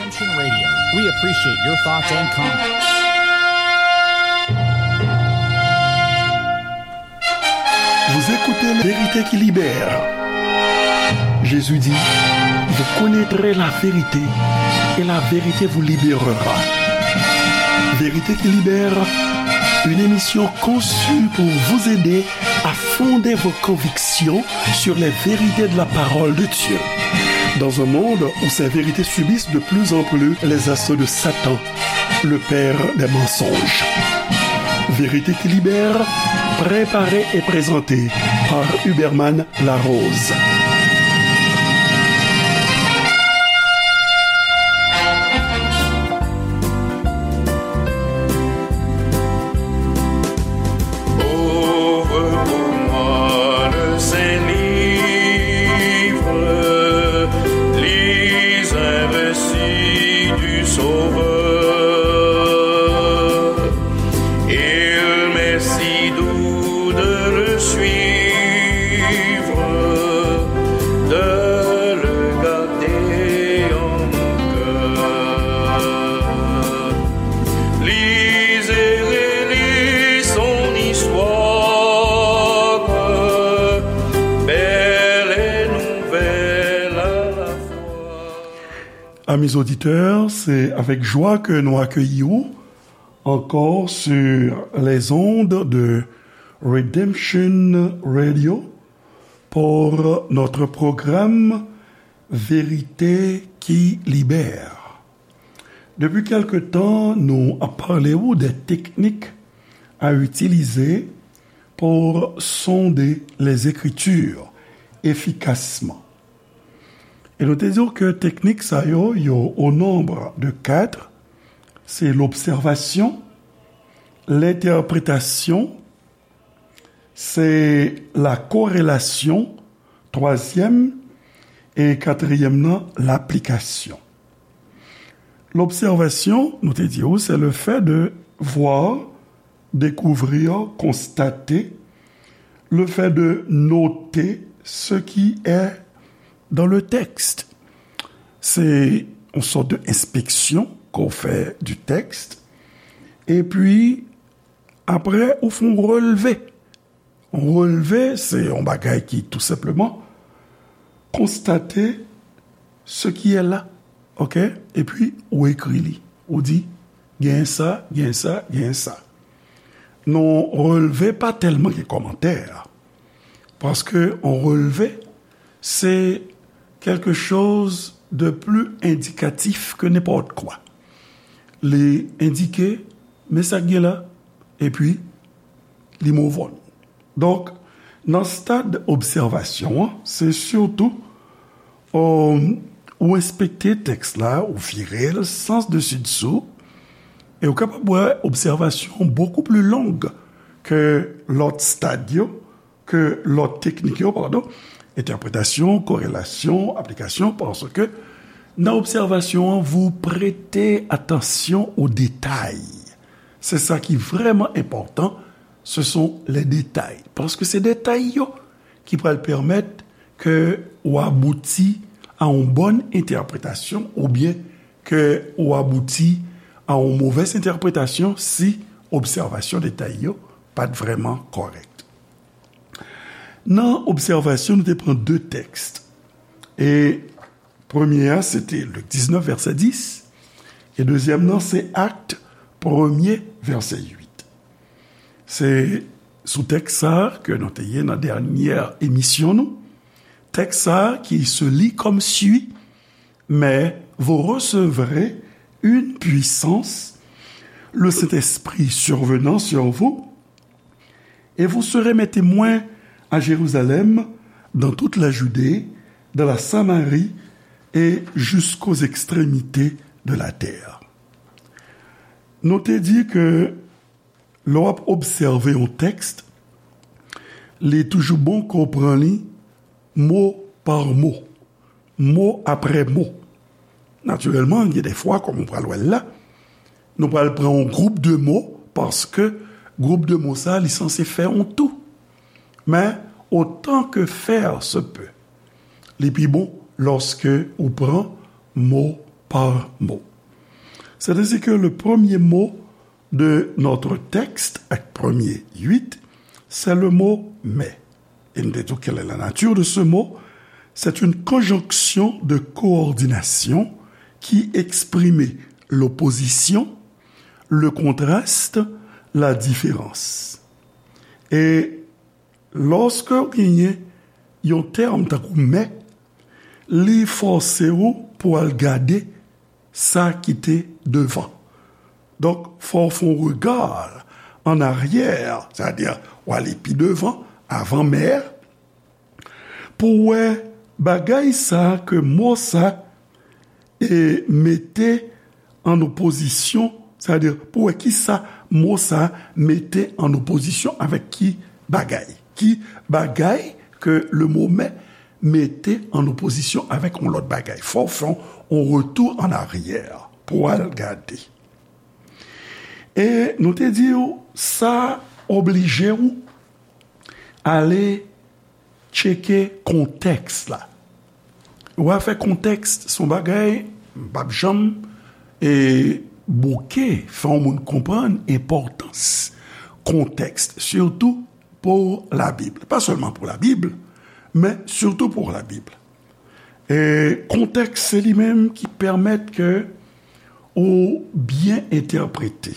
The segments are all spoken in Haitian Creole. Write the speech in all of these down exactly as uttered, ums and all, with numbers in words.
Redemption Radio. We appreciate your thoughts and comments. Vous écoutez La Vérité qui libère. Jésus dit, vous connaîtrez la vérité et la vérité vous libérera. Vérité qui libère, une émission conçue pour vous aider à fonder vos convictions sur les vérités de la parole de Dieu. Dans un monde où ces vérités subissent de plus en plus les assauts de Satan, le père des mensonges. Vérité qui libère, préparée et présentée par Huberman Larose. Ouvre pour moi le Saint-Livre, lis un récit du Sauveur. Il m'est si doux de le suivre, de le garder en mon cœur. Lis et relis son histoire, belle et nouvelle à la fois. Amis auditeurs, c'est avec joie que nous accueillons ankò sur les ondes de Redemption Radio pour notre programme Vérité qui libère. Depi kèlke tan, nou ap pale w de teknik a itilize pour sonder les Écritures efficacement. E nou te di w ke teknik sa yo, yo au nombre de quatre, se lobsèvasyon, lentèpretasyon, se la korelasyon, twazyèm, e katriyèm nan, laplikasyon. Lobsèvasyon, nou te di w, se le fait de voir, découvrir, constater, le fait de noter ce qui est dans le texte. Se yon sòt de enspeksyon ke w fè du texte. Epi, apre, ou fè yon relve. Yon relve, se yon bagay ki tou senpleman konstate ce qui est là, oke? Epi, ou ekri li. Ou di, gen sa, gen sa, gen sa. Non, relve pa tèlman gen kòmantè. Paske yon relve, se quelque chose de plus indicatif que n'importe quoi. Li endike, men sa k gen la, epi li move on. Donk, nan stad obsèvasyon an, se sitou, euh, ou enspekte tèks la, ou vire l sans desi dsou, e ou kapab wè obsèvasyon beaucoup plus longue ke lòt stad yo, ke lòt teknik yo, padon, entèpretasyon, korelasyon, aplikasyon, paske nan obsèvasyon an, vous prêtez attention aux détails. Se sa ki vrèman enpòtan, ce sont les détails. Paske se detay yo ki pral pèmèt ke ou abouti a yon bòn entèpretasyon oubyen ke ou abouti a yon movèz entèpretasyon si obsèvasyon detay yo pa t vrèman kòrèk. Nan obsèvasyon, nou te pran de tèks. E premye a, se te Lik diznèf, vèsè dis, e dezyèm nan, se Akt, premye, vèsè uit. Se sou tèks sa a ke nou te ye nan dènyè emisyon nou. Tèks sa a qui se lit comme suit, mais vous recevrez une puissance, le Saint-Esprit survenant sur vous, et vous serez mes témoins à Jérusalem, dans toute la Judée, dans la Samarie et jusqu'aux extrémités de la terre. Nou te di ke lè w ap obsève yon tèks, li toujou bon ke w pran li mo pa mo, mo apre mo. Natirèlman, gen de fwa, kòm ou pral wè l la, nou pral pran yon gwoup de mo, paske gwoup de mo sa, li sanse fè yon tou. Men, autant que faire se peut, li pi bon lòske ou pran mo par mot. C'est ainsi que le premier mot de notre texte, ak premye uit, c'est le mot mais. Et nous disons quelle est la nature de ce mot. C'est une conjonction de coordination qui exprime l'opposition, le contraste, la différence. E lòske w genyen yon tèm tankou mais, li fòse w pou al gade sa ki te devan. Donk, fò w fè yon rega an aryè, sètadi w ale pi devan, avan mais, pou w wè bagay sa ke mo sa e mete an opozisyon, sètadi pou w wè ki sa mo sa mete an opozisyon avèk ki bagay. Ki bagay ke le mo mais mete an opozisyon avèk yon lòt bagay. Fò w fè yon retou an aryè pou w al gade. E nou te di w, sa oblije w ale tcheke kontèks la. Ou afè kontèks se yon bagay m p ap janm e bouke fè yon moun konprann enpòtans kontèks, sitou pou Labib. Pa sèlman pou Labib, men sitou pou Labib. E kontèks se li menm ki pèmèt ke ou byen entèprete.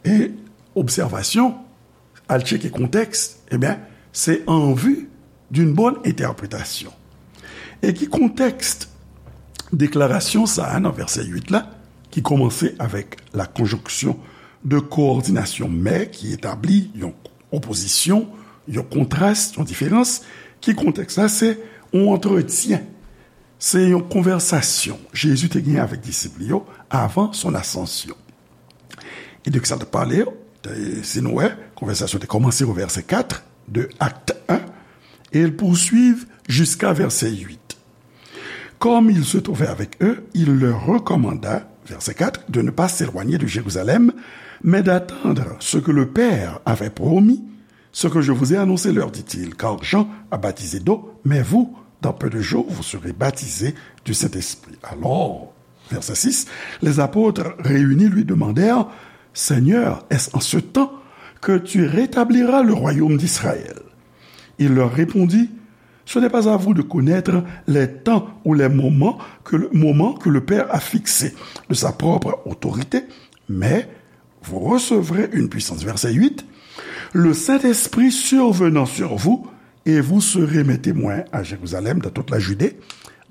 E obsèvasyon, al tcheke kontèks, ebyen, se an vi d'une bonne interprétation. E ki kontèks deklarasyon sa a nan vèsè uit la, ki kòmanse avèk la conjonction de coordination mais, ki etabli yon opozisyon, yon kontras, yon diferans, ki kontèks la, se yon antretyen, se yon konvèsasyon Jezi te genyen avèk disip li yo avan son asansyon. E de ki sa l t ap pale? E si nou wè, konvèsasyon te kòmanse o vèsè kat de Acte un, et il poursuit jusqu'à verset huit. Comme il se trouvait avec eux, il leur recommanda, verset quatre, de ne pas s'éloigner de Jérusalem, mais d'attendre ce que le Père avait promis, ce que je vous ai annoncé, leur dit-il, car Jean a baptisé d'eau, mais vous, dans peu de jours, vous serez baptisés du Saint-Esprit. Alors, verset six, les apôtres réunis lui demandèrent, Seigneur, est-ce en ce temps que tu rétabliras le royaume d'Israël? Il leur répondit, ce n'est pas à vous de connaître les temps ou les moments que le, moments que le Père a fixés de sa propre autorité, mais vous recevrez une puissance. Verset huit, le Saint-Esprit survenant sur vous, et vous serez mes témoins à Jérusalem, dans toute la Judée,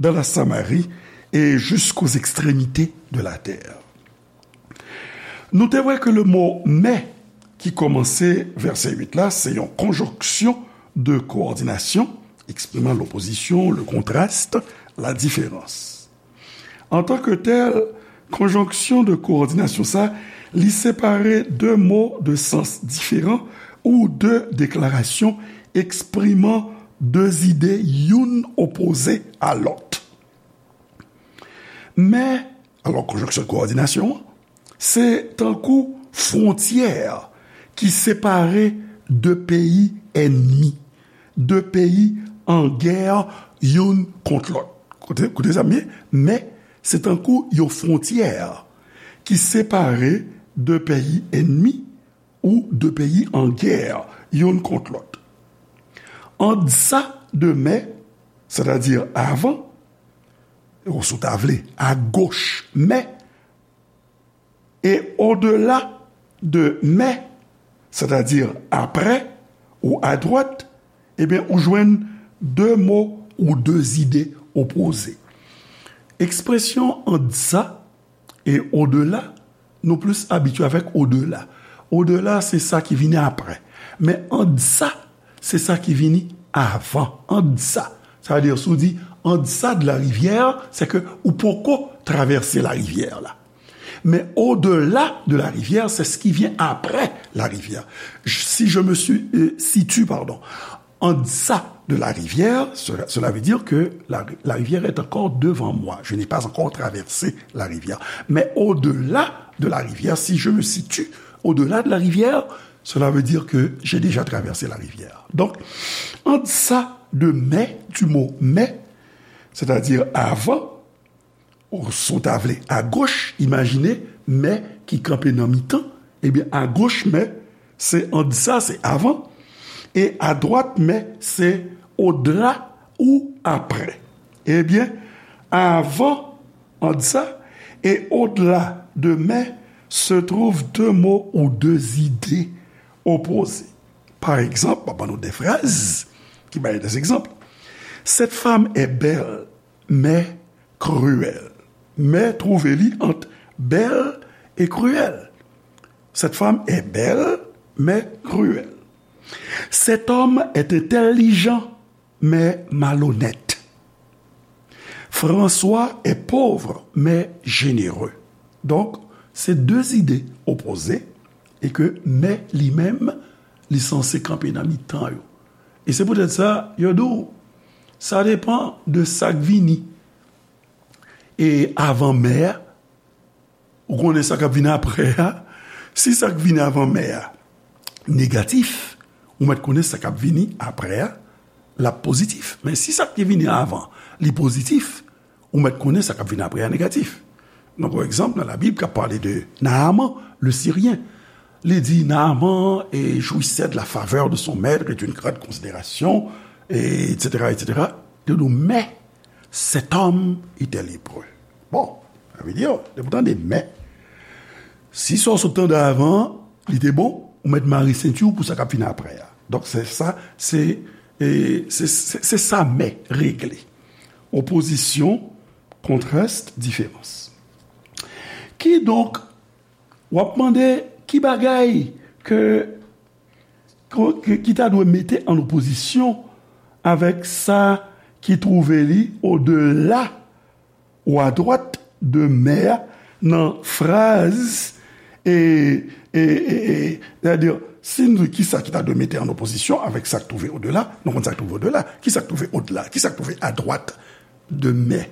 dans la Samarie et jusqu'aux extrémités de la terre. Nou te wè ke le mo mais ki kòmanse vèsè uit la, se yon konjonksyon de koòdinasyon, ekspriman lopozisyon, le contraste, la différence. Antanke tèl, konjonksyon de koòdinasyon sa, li separe de mo de sans diferan ou de deklarasyon ekspriman de zide youn opoze a lòt. Men, alò, konjonksyon de koòdinasyon an, se tankou fwontyè ki separe de peyi ènmi, de peyi an gè youn kont lòt. Koute, koute sa byen, men se tankou yon fwontyè ki separe de peyi ènmi ou de peyi an gè youn kont lòt. Ant sa de men, sètadi avan, ou si w ta vle, agoch men, e odela de men, sètadi apre ou adwat, ebyen, ou jwenn de mo ou de zide opoze. Ekspresyon ant sa e odela, nou plis abitye avèk odela. Odela, se sa ki vini apre. Men ant sa, se sa ki vini avan. Ant sa. Sa vle di, si w di ant sa de la rivière, se ke ou poko travèse la rivière la. Men au-delà de la rivière, c'est ce qui vient après la rivière. Si je me suis, euh, situe, pardon, en deçà de la rivière, cela, cela veut dire que la, la rivière est encore devant moi. Je n'ai pas encore traversé la rivière. Mais au-delà de la rivière, si je me situe au-delà de la rivière, cela veut dire que j'ai déjà traversé la rivière. Donc, en deçà de mais, du mot mais, c'est-à-dire avant, Ou, si w ta vle, agoch, imajine mè ki kanpe nan mitan. Ebyen, agoch mè, se ant sa, se avan. E adwat mè, se odla ou aprè. Ebyen, avan ant sa e odla de mè se twouv de mo ou de zide opoze. Pa egzanp, m ap ban nou de fraz ki bay de egzanp. Cette femme est belle, mais cruelle. Mè twouve li ant bèl e kriyèl. Cette femme est belle, mais cruelle. Cet homme est intelligent, mais malhonnête. François est pauvre, mais généreux. Donk, se de zide opoze e ke mè li menm, li sanse kanpe nan mitan yo. E se poutèt sa, yo di w, sa depann de sa k vini. E avan mè a, ou konnen sa k ap vini aprè a. Si sa k vini avan mè a negatif, ou mèt konnen sa k ap vini aprè a, l ap pozitif. Men si sa k te vini avan, li pozitif, ou mèt konnen sa k ap vini aprè a negatif. Donk, yon egzanp nan Labib k ap pale de Naaman, le Siryen. Li di, Naaman, et jouissait de la faveur de son maître et d'une grande considération, et, et cetera, et cetera. Li di, mais cet homme était lépreux. Bon, sa vle di, depi w tande mè, si sa w sot tande avan, li te bon, ou mèt mare senti w pou sa k ap vini aprè a. Donk, se sa, se, e, se, se, se sa mè regle. Opozisyon, kontras, diferans. Kidonk, w ap mande ki bagay ke, ke, ki ta dwe mete an opozisyon avèk sa ki twouve li odela ou adwat de mè a nan fraz, e, e, e, e, sètadi, si n di ki sa ki ta dwe mete an opozisyon avèk sa k twouve odela, nou konn sa k twouve odela, ki sa k twouve odela, ki sa k twouve adwat de mè.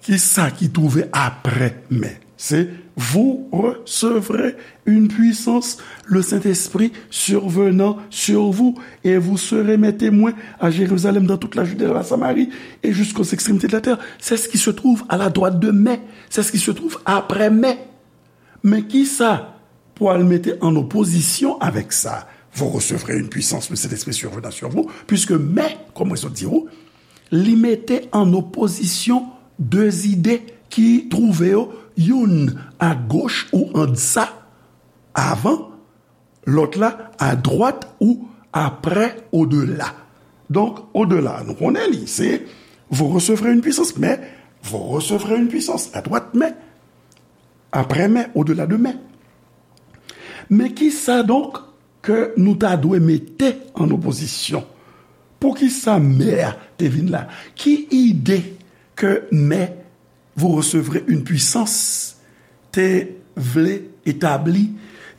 Ki sa ki twouve aprè mè? Se, vous recevrez une puissance, le Saint-Esprit survenant sur vous, et vous serez mes témoins à Jérusalem, dans toute la Judée, dans la Samarie, et jusqu'aux extrémités de la terre. C'est ce qui se trouve à la droite de mais, c'est ce qui se trouve après mais. Men ki sa pou al mete an opozisyon avèk sa? Vous recevrez une puissance, le Saint-Esprit survenant sur vous, puisque mais, kòm mwen sot di w, li mete an opozisyon de zide ki twouve yo, youn agoch ou an dsa, avan, lòt la adwat ou aprè, odela. Donk, odela, nou konnen li, se, vous recevrez une puissance, mais vous recevrez une puissance, adwat mè, aprè mè, odela de mè. Men ki sa donk ke nou ta dwe mete an opozisyon? Poukisa mè a te vin la? Ki ide ke mè, vous recevrez une puissance, te vle etabli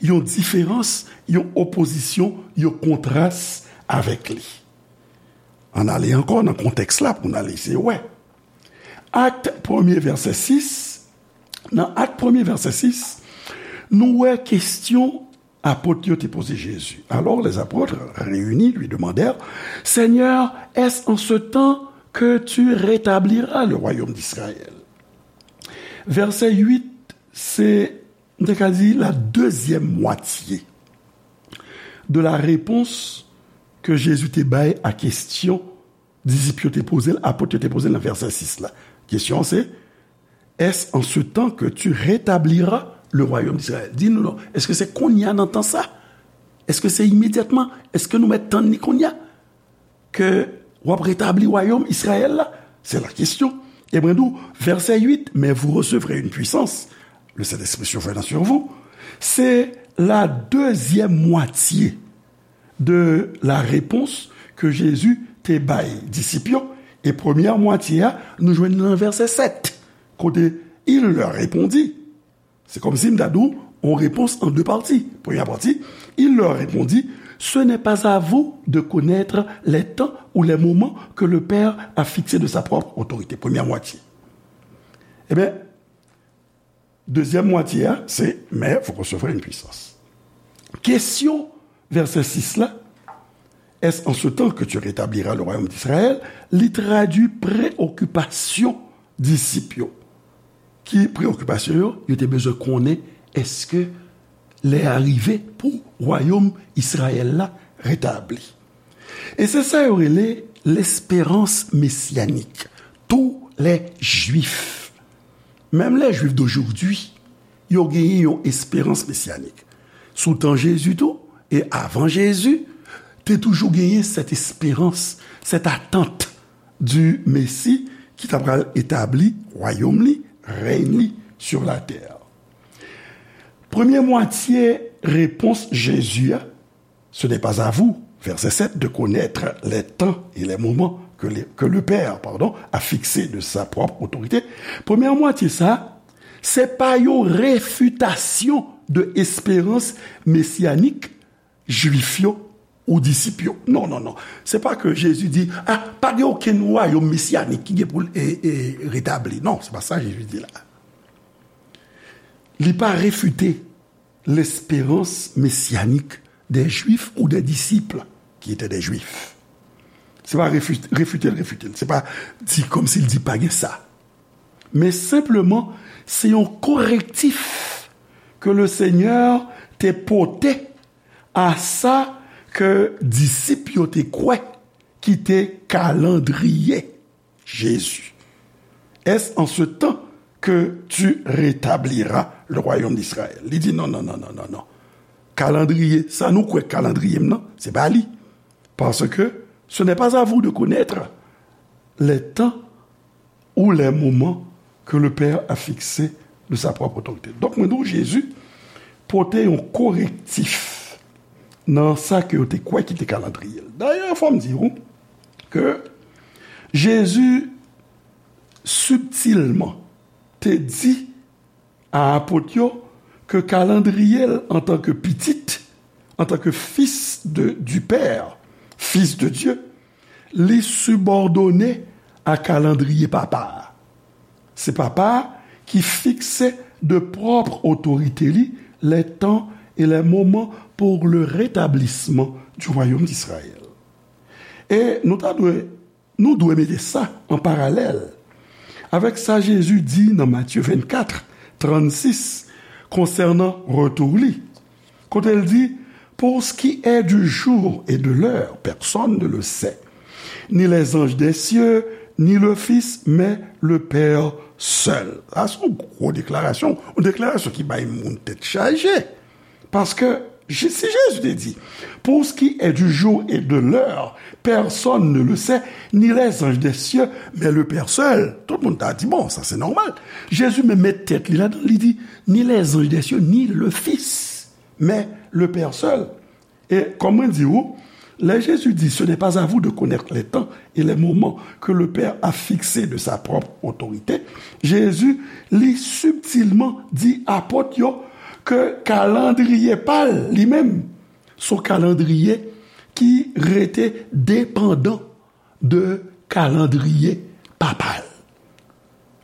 yon diferans, yon opozisyon, yon kontras avèk li? Ann ale ankò nan kontèks la pou n al eseye wè. Ak premye, vèsè sis, nan Ak premye, vèsè sis, nou wè kesyon apot yo te poze Jezi. Alors les apôtres réunis lui demandèrent, Seigneur, est-ce en ce temps que tu rétabliras le royaume d'Israël? Vèsè uit, se, m te ka di, la dezyèm mwatye de la repons ke Jezi te bay a kesyon disip yo te poze l, apot yo te poze l nan vèsè sis la. Kesyon an se, Est-ce en ce temps que tu rétabliras le royaume d'Israël? Di nou non, èske se kounye a nan tan sa? Èske se imedyatman? Èske nou mèt tann li kounye a ke w ap retabli wayòm Izrayèl la? Se la kesyon. Ebyen, nou, vèsè uit, mais vous recevrez une puissance, le Saint-Esprit survenant sur vous. Se la dezyèm mwatye de la repons ke Jezi te bay disip yo. E premyè mwatye a, nou jwenn nan vèsè sèt, kote il leur répondit. Se kòmsi m ta di w, yon repons an de pati. Premyè pati, il leur répondit, ce n'est pas à vous de connaître les temps ou les moments que le Père a fixés de sa propre autorité. Premyè mwatye. Ebyen, dezyèm mwatye a, se, mais vous recevrez une puissance. Kesyon vèsè sis la, est-ce en ce temps que tu rétabliras le royaume d'Israël? Li tradui preokipasyon disip yo. ki preyokipasyon yo, yo te bezwen konnen èske lè a rive pou wayòm Izrayèl la retabli. E se sa yo rele l'espérance messianique. Tous les Juifs, même les Juifs d'aujourd'hui, yo genyen yon esperans mesyanik. Sou tan Jezi tou, e avan Jezi, te toujou genyen cette espérance, cette attente du Messie ki ta pral etabli wayòm li, rèy li sur la terre. Premye mwatye repons Jezi a, ce n'est pas à vous, verset sept, de connaître les temps et les moments que le, que le Père, pardon, a fixés de sa propre autorité. Premye mwatye sa, se pa yon refitasyon de esperans mesyanik Jwif yo ou disip yo. Non, non, non. Se pa ke Jezi di, ah, pa gen okenn wayòm mesyanik ki gen pou l e, e, retabli. Non, se pa sa Jezi di la. Li pa refite l'espérance messianique des Juifs ou des disciples qui étaient des Juifs. Se pa refi-, refite l, refite l. Se pa di kòmsi l di pa gen sa. Men senpleman, se yon korektif ke le Senyè te pote a sa ke disip yo te kwè ki te kalandriye Jezi. Est-ce en ce temps que tu rétabliras le royaume d'Israël? Li di, non, non, non, non, non, non. Kalandriye, sa nou kwè kalandriye m nan, se pa li. Parce que ce n'est pas à vous de connaître les temps ou les moments que le Père a fixés de sa propre autorité. Donk, mwen di w, Jezi pote yon korektif nan sa ke yo te kwè ki te kalandriye l. Dayè, fò m di w ke Jezi sibtilman te di a apot yo ke kalandriye l antanke pitit, antanke fils de, du Père, fils de Dieu, li sibòdone a kalandriye Papa a. Se Papa a ki fikse de pwòp otorite li les temps et les moments pour le rétablissement du royaume d'Israël. E nou ta dwe, nou dwe mete sa an paralèl avèk sa Jezi di nan Matye vennkat, trannsis, konsènan retou li. Kote l di, pour ce qui est du jour et de l'heure, personne ne le sait, ni les anges des cieux, ni le Fils, mais le Père seul. Sa se yon gwo deklarasyon, yon deklarasyon ki bay moun tèt chaje. Paske, Je-, si Jezi te di, pour ce qui est du jour et de l'heure, personne ne le sait, ni les anges des cieux, mais le Père seul. Tout moun ta di, bon, sa se nòmal. Jezi menm met tèt li ladan, li di, ni les anges des cieux, ni le Fils, mais le Père seul. E kòm mwen di w, lè Jezi di, ce n'est pas à vous de connaître les temps et les moments que le Père a fixés de sa propre autorité, Jezi, li sibtilman di apot yo ke kalandriye pa l, li menm, se yon kalandriye ki rete depandan de kalandriye Papa l.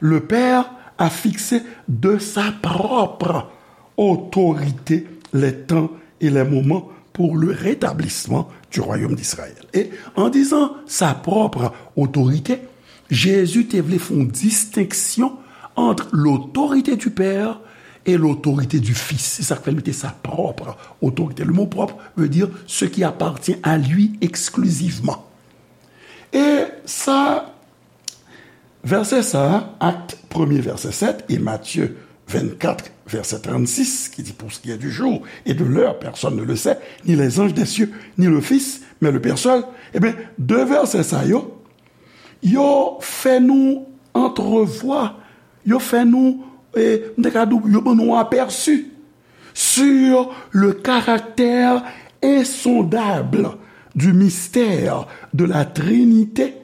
Le Père a fixé de sa propre autorité les temps et les moments pour le rétablissement du royaume d'Israël. Et en disant sa propre autorité, Jezi te vle fè yon distenksyon ant lotorite du Père et lotorite du Fils. Se sa k fè l mete sa propre autorité. Le mot propre veut dire ce qui appartient à lui exclusivement. E sa, vèsè sa a, Akt premye vèsè sèt e Matye vennkat vèsè trannsis, ki di, pour ce qui est du jour et de l'heure, personne ne le sait, ni les anges des cieux, ni le Fils, mais le Père seul. Ebyen, de vèsè sa yo, yo fè nou antrevwa, yo fè nou, e, m te ka di w, yo ban nou apèsi sur le caractère insondable du mystère de la Trinité,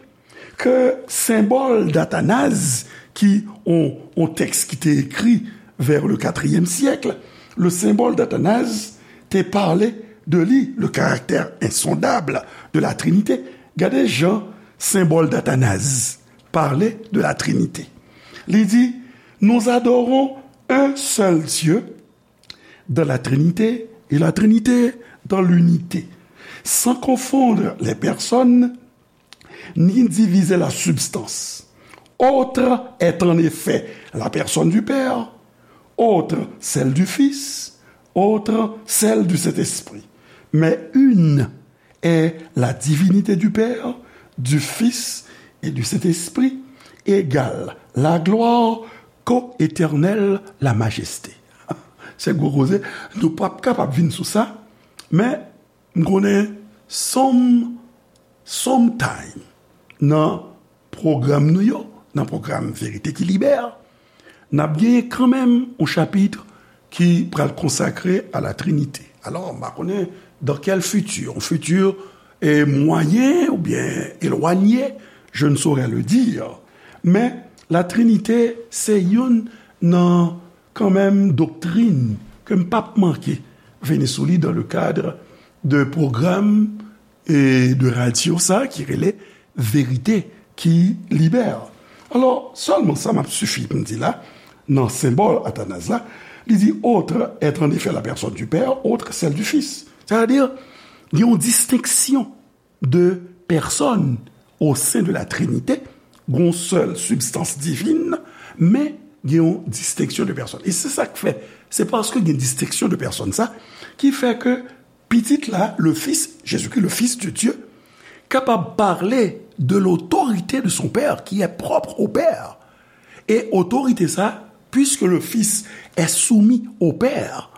ke senbòl d'Athanase, ki on, on tèks ki te ekri vers le quatrième siècle, le symbole d'Athanase te pale de li, le caractère insondable de la Trinité. Gade jan senbòl d'Athanase pale de la Trinité. Li di, nous adorons un seul Dieu dans la Trinité et la Trinité dans l'unité, sans confondre les personnes ni diviser la substance. Autre est en effet la personne du Père, autre celle du Fils, autre celle du Saint-Esprit. Mais une est la divinité du Père, du Fils et du Saint-Esprit, égale la gloire, co-éternelle la majesté. Se gwo koze, nou p ap kapab vin sou sa, men m konnen some, sometime nan pwogram nou yo, nan pwogram Verite ki Libè, n ap genyen kanmenm yon chapit ki pral konsakre a la Trinite. Alò, m pa konnen dans quel futur, un futur eh, moyen oubyen elwanye, je ne saurais le dire. Men, la Trinite se youn nan kanmenm doktrin ke m p ap manke vini sou li dans le cadre de pwogram e de radyo sa ki rele Verite ki Libè. Alò, sèlman sa m ap sifi pou m di la, nan senbòl Atanaz la, li di, autre est en effet la personne du Père, autre celle du Fils. Sètadi, gen yon distenksyon de pèsòn o sen de la Trinite, gen yon sèl sibstans divin, men gen yon distenksyon de pèsòn. E se sa k fè, se paske gen distenksyon de pèsòn sa, ki fè ke Pitit la, le Fils, Jésus-Christ, le Fils de Dieu, kapab pale de l'autorité de son Père, qui est propre au Père. Et autorité sa, puisque le Fils est soumis au Père,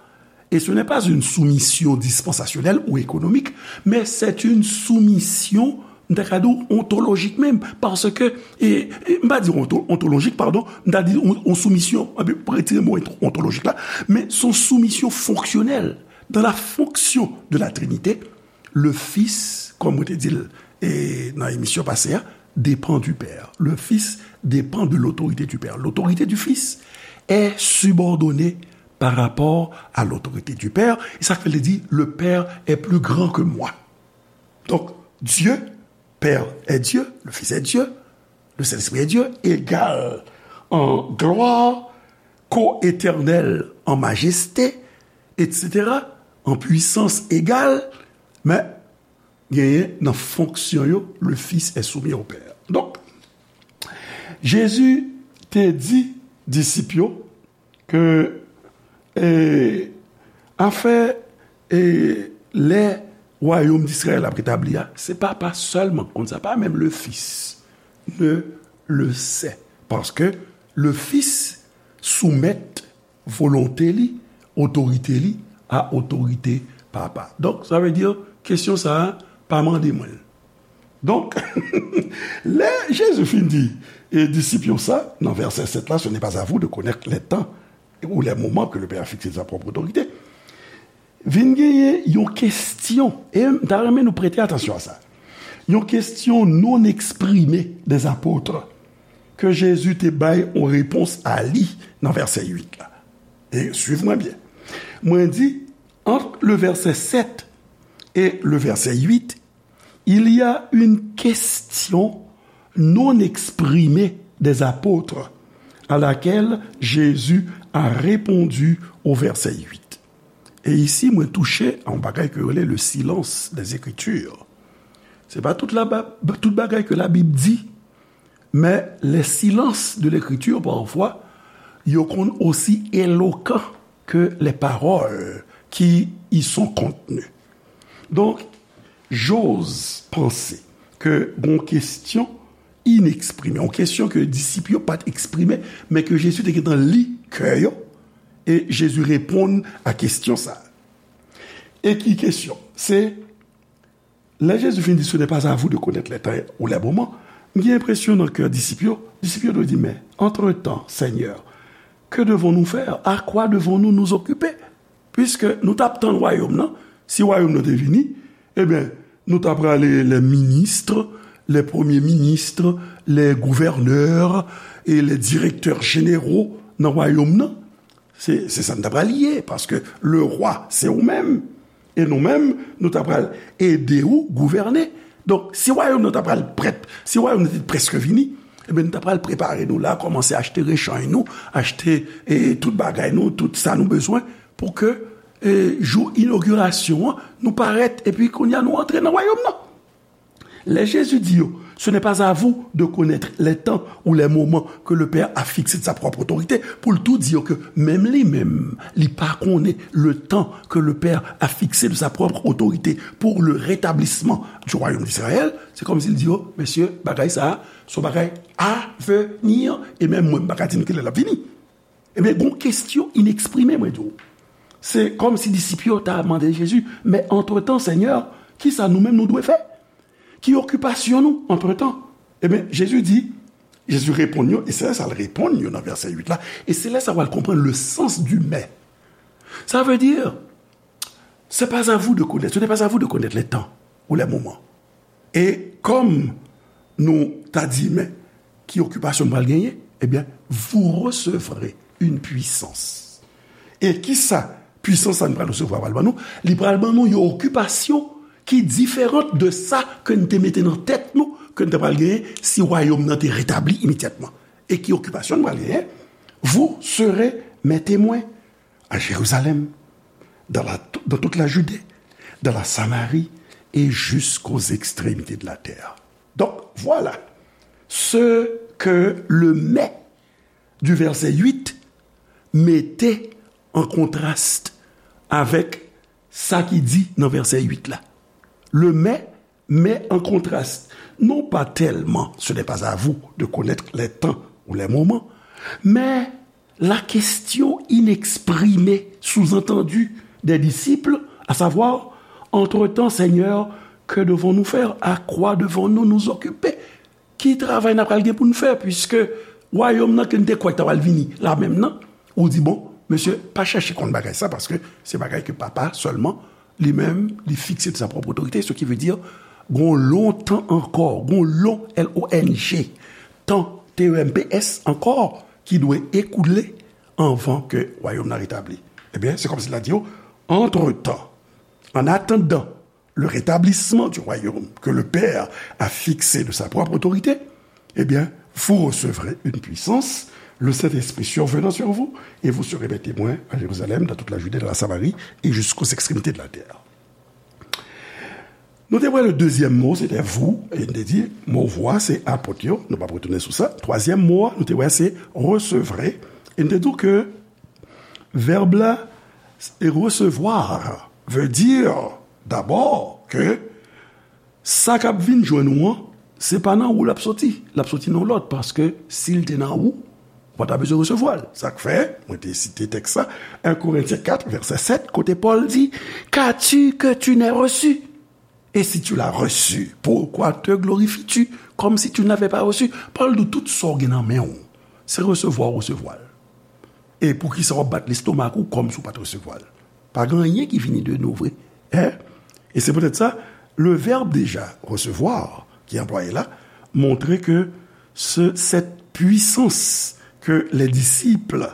et ce n'est pas une soumission dispensationelle ou économique, mais c'est une soumission, m ta ka di w, ontolojik menm, paske, e, e, m pa di onto-, ontolojik, padon, m ta di yon, yon soumisyon, anpi, retire mo onto-, ontolojik la, men se yon soumisyon fonksyonèl. Dans la fonction de la Trinité, le Fils, kòm mwen te di l, e, nan emisyon pase a, dépend du Père. Le Fils dépend de l'autorité du Père. L'autorité du Fils est subordonnée par rapport à l'autorité du Père. E sa k fè l di, le Père est plus grand que moi. Donk, Dieu, Père est Dieu, le Fils est Dieu, le Saint-Esprit est Dieu, égal en gloire, co-éternel en majesté, et cetera, en puissance égale, men genyen nan fonksyon yo, le Fils est soumis au Père. Donk, Jezi te di disip yo ke, e, afè, e, lè wayòm Dizrayèl ap retabli a, se Papa sèlman k konn sa, pas même le Fils ne le sait, paske le Fils soumèt volonte li, otorite li, a otorite Papa. Donk, sa vle di, kesyon sa a, pa mande mwen l. Donk, lè Jezi fin di, e, disip yo sa, nan vèsè sèt la, ce n'est pas à vous de connaître les temps ou les moments que le Père a fixés de sa propre autorité, vin genyen yon kesyon, e m ta renmen nou prete atansyon a sa. Yon kesyon non eksprime des apôtres ke Jezi te bay yon repons a li nan vèsè uit la. E suiv mwen byen. Mwen di, entre le verset sept et le verset huit, il y a une question non exprimée des apôtres à laquelle Jésus a répondu au verset huit. E isi, mwen touche a yon bagay ke yo rele le silence des Écritures. Se pa tout la, tout bagay ke Labib di, men les silences de l'Écriture, parfois, yo konn osi elokan ke les paroles qui y sont contenues. Donk, j'ose penser ke gon kesyon ineksprimé, yon kesyon ke disip yo pa t eksprime, men ke Jezi te gentan li kè yo, e Jezi reponn a kesyon sa a. E ki kesyon? Se, lè Jezi fin di, ce n'est pas à vous de connaître les temps ou les moments, m gen enpresyon nan kè disip yo, disip yo dwe di, mais entre-temps, Seigneur, que devons-nous faire? À quoi devons-nous nous occuper? Puiske nou t ap tann wayòm nan, si wayòm nan te vini, ebyen, nou ta prale les ministres, les premiers ministres, les gouverneurs et les directeurs généraux nan wayòm nan. Se, se sa n ta pral ye, paske le roi, se ou menm. E nou menm, nou ta pral ede ou gouvène. Donk, si wayòm nan ta pral prèt, si wayòm nan te prèske vini, ebyen, nou ta pral prepare nou la, kòmanse achte rechanj nou, achte, e, tout bagay nou, tout sa nou bezwen, pou ke, e, jou inogirasyon an, nou parèt, epi kounye a nou antre nan wayòm nan. Lè Jezi di yo, ce n'est pas à vous de connaître les temps ou les moments que le Père a fixés de sa propre autorité, pou l tou di yo ke menm li menm, li pa konnen le temps que le Père a fixé de sa propre autorité pour le rétablissement du royaume d'Israël, se kòmsi l di yo, mesye, bagay sa a, se yon bagay avenir, e menm mwen, m pa ka di nou kilè l ap vini. Ebyen, gon kesyon ineksprime, mwen di w. Se kòmsi disip yo ta mande Jezi, men antretan, Senyè, kisa nou menm nou dwe fè? Ki okipasyon nou, antretan? Ebyen, Jezi di, Jezi reponn yo, e se sa l reponn yo nan vèsè uit la, e se lè sa w al konprann le sens du mais. Ça veut dire, c'est pas à vous de connaître, ce n'est pas à vous de connaître les temps ou les moments. E kòm nou ta di, men ki okipasyon m pral genyen? Ebyen, vous recevrez une puissance. E kisa pwisans sa n pral resevwa pral ban nou? Li pral ban nou yon okipasyon ki diferan de sa ke n te mete nan tèt nou, ke n te pral genyen si wayòm nan te retabli imedyatman. E ki okipasyon n pral genyen? Vous serez mes témoins à Jérusalem, dans la, dans toute la Judée, dans la Samarie et jusqu'aux extrémités de la terre. Donc, voilà ce que le mais du verset huit mete en contraste avec sa ki di nan vèsè uit la. Le mais met en contraste, non pas tellement ce n'est pas à vous de connaître les temps ou les moments, mais la question inexprimée, sous-entendue, des disciples, à savoir, entre-temps, Seigneur, que devons-nous faire? À quoi devons-nous nous occuper? Ki travay n ap pral gen pou n fè, piske wayòm nan ke n te kwè k ta pral vini la menm nan, ou di, bon, mesye, pa chèche konn bagay sa, paske se bagay ke Papa sèlman, li menm, li fikse de sa pwòp otorite, ce qui veut dire, gon lontan ankò, gon lon, L O N G, tan, T E M P S, ankò, ki dwe ekoule anvan ke wayòm nan retabli. Ebyen, se kòmsi l ap di yo, entre-temps, en attendant, le rétablissement du royaume que le Père a fixé de sa propre autorité, eh bien, vous recevrez une puissance, le Saint-Esprit survenant sur vous, et vous serez mes témoins à Jérusalem, dans toute la Judée, dans la Samarie et jusqu'aux extrémités de la terre. Nou te wè le dezyèm mo, se te vous, e nou te di, mo vous a, se apot yo, nou p ap retounen sou sa. Twazyèm mo a, nou te wè, se recevrez, e nou te di ke vèb la, e recevoir, veut dire d'abord que sa k ap vin jwenn ou an, se pa nan ou l ap soti, l ap soti nan lòt, paske si l te nan ou, ou pa ta bezwen resevwa l. Sa k fè, mwen te site tèks sa, un Corinthiens quatre, verset sept, kote Pòl di, qu'as-tu que tu n'aies reçu? Et si tu l'as reçu, pourquoi te glorifies-tu comme si tu ne l'avais pas reçu? Pòl di w tout sa w gen nan men w, se resevwa w resevwa l. E poukisa w ap bat lestomak ou kòmsi w pa t resevwa l? Pa gen anyen ki vini de nou vre. Hein? E se poutèt sa, le verbe déjà recevoir ki anplwaye la montre ke se, cette puissance que les disciples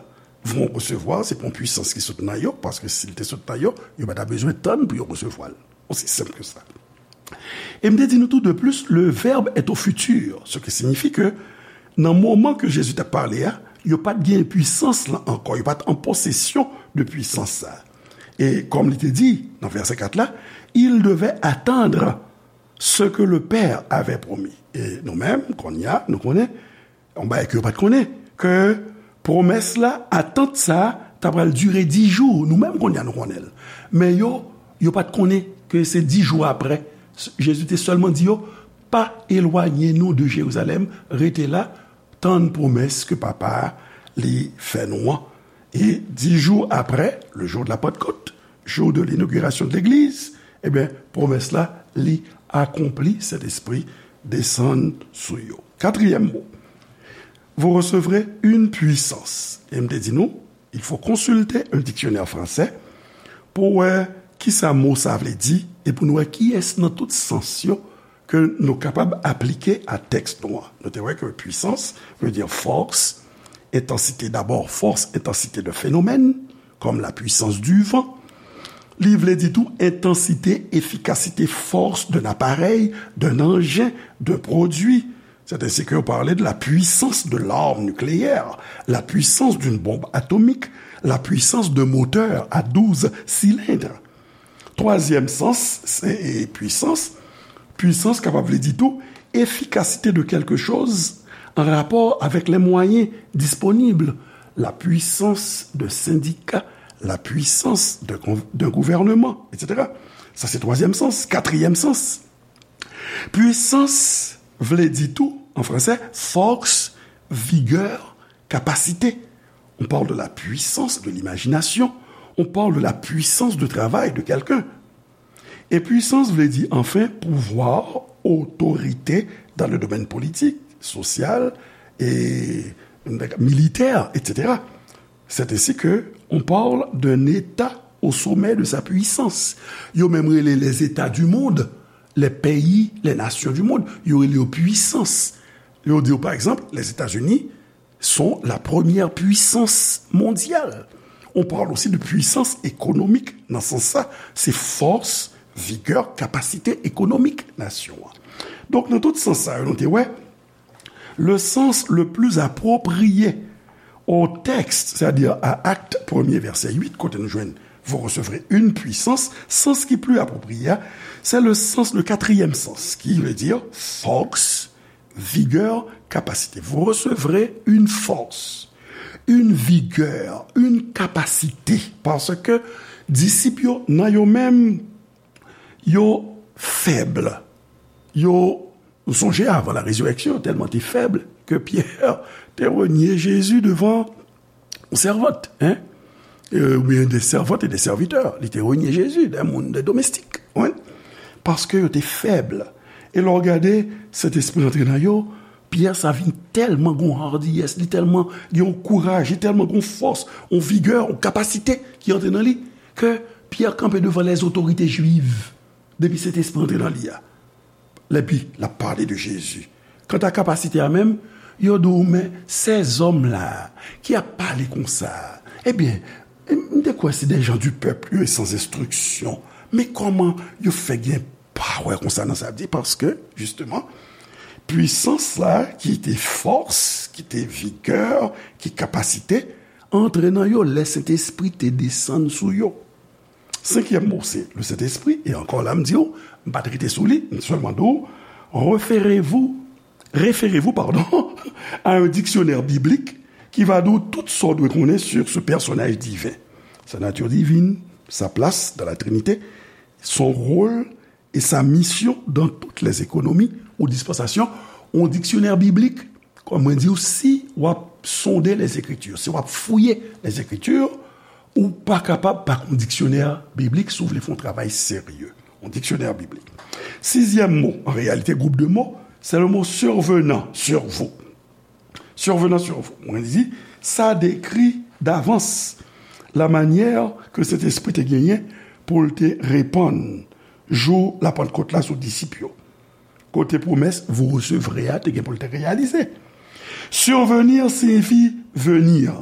vont recevoir, se pa yon pwisans ki sot nan yo, paske si l te sot nan yo, yo pa ta bezwen tann pou yo resevwa l. Aussi simple que ça. E m te di nou tou, de plus, le verbe est au futur, ce qui signifie que nan moman ke Jezi t ap pale a, yo pa t gen pwisans lan ankò, yo pa t an posesyon de pwisans sa. E kòm li te di nan vèsè kat la, il devait attendre ce que le Père avait promis. E nou menm, kounye a, nou konnen, yon bagay ke yo pa t konnen, ke pwomès la, atant sa, ta pral dire dis jou. Nou menm kounye a nou konnen l. Men yo, yo pa t konnen ke se dis jou apre. Jezi te sèlman di yo, pa elwaye nou de Jerizalèm, rete la, tann pwomès ke Papa a li fè nou an. E dis jou apre, le jour de la Pentecôte, jour de l'inauguration de l'église, ebyen, pwomès la, li akonpli, Sentespri desann sou yo. Katriyèm mo, vous recevrez une puissance. E m te di nou, il faut consulter un dictionnaire français pou wè kisa mo sa vle di e pou nou wè kiyès nan tout sans yo ke nou kapab aplike a tèks nou an. Nou te wè ke puissance veut dire force, intensité d'abord, force, intensité de phénomène, comme la puissance du vent. Li vle di tou intensité, efficacité, force d'un appareil, d'un engin, d'un produit. C'est ainsi que vous parlez de la puissance de l'arme nucléaire, la puissance d'une bombe atomique, la puissance d'un moteur à douze cylindres. Twazyèm sans, se, e, pwisans, Pwisans kapab vle di tou efikasite de quelque chose en rapport avec les moyens disponibles, la puissance d'un syndicat, la puissance d'un gouvernement, et cetera. Sa se twazyèm sans. Katriyèm sans, pwisans vle di tou, an fransè, force, vigueur, capacité. On parle de la puissance de l'imagination, on parle de la puissance de travail de quelqu'un. E pwisans vle di, anfen, pouvwa, otorite dans le domaine politique, social et militaire, et cetera. C'est ainsi que on parle d'un État au sommet de sa puissance. Yo menm rele les États du monde, les pays, les nations du monde, yo rele yo pwisans. Yo di yo, pa egzanp, Lèzetazini sont la première puissance mondiale. On parle aussi de puissance économique. Nan sans sa, se fòs, vigè, kapasite ekonomik nasyon an. Donk, nan tout sans sa yo, nou te wè, le sens le plus approprié au texte, c'est-à-dire à Acte premier, verset huit, kote nou jwenn vous recevrez une puissance, sans ki pli apwopriye a, c'est le sens, le quatrième sens, qui veut dire force, vigueur, capacité. Vous recevrez une force, une vigueur, une capacité. Paske disip yo, nan yo menm, yo fèb. Yo, nou sonje avan la résurrection, tèlman te fèb ke Pyè te renye Jezi devan yon sèvant, hein? Euh, oubyen de sèvant e de sèvitè. Li te renye Jezi, de moun, de domestik. Wi. Paske yo te fèb. E lè w gade, Sentespri antre nan yo, Pyè sa vin tèlman gon hardiyès, li tèlman gen yon kouraj, li tèlman gon fòs, yon vigè, yon kapasite ki antre nan li, ke Pyè kanpe devan lèzotorite jwiv, depi Sentespri antre nan li a. Epi, l ap pale de Jezi. Kanta kapasite a menm, yo di w, men, ces hommes-là qui ap pale konsa, ebyen, m te kwè se des gens du peuple, yo sans instruction. Men kòman yo fè gen pawè konsa nan sa di, paske, jisteman, pwisans la, ki te fòs, ki te vigè, ki kapasite, antre nan yo lè Sentespri te desann sou yo. Senkyèm mo, se le Sentespri, e ankò la, m di w, m pa t rete sou li, m sèlman di w, référez-vous, référez-vous, pardon, à un dictionnaire biblique qui va di w tout sa w dwe konnen sur ce personnage divin, sa nature divine, sa place dans la Trinité, son rôle et sa mission dans toutes les économies ou dispensations. Yon diksyonè biblik, kòm mwen di w, si w ap sonde les Écritures, si w ap fouye les Écritures, ou pa kapab pa gen yon diksyonè biblik si w vle fè yon travay serye. Yon diksyonè biblik. Sizyèm mo, an reyalite, gwoup de mo, se le mo survenant, sur vous. Survenant, sur vous. Mwen di, sa dekri davans la manyè ke Sentespri te genyen pou l te repann jou Lapantkot la sou disip yo. Kote pwomès vous recevrez a te gen pou l te reyalize. Survenir siyifi venir,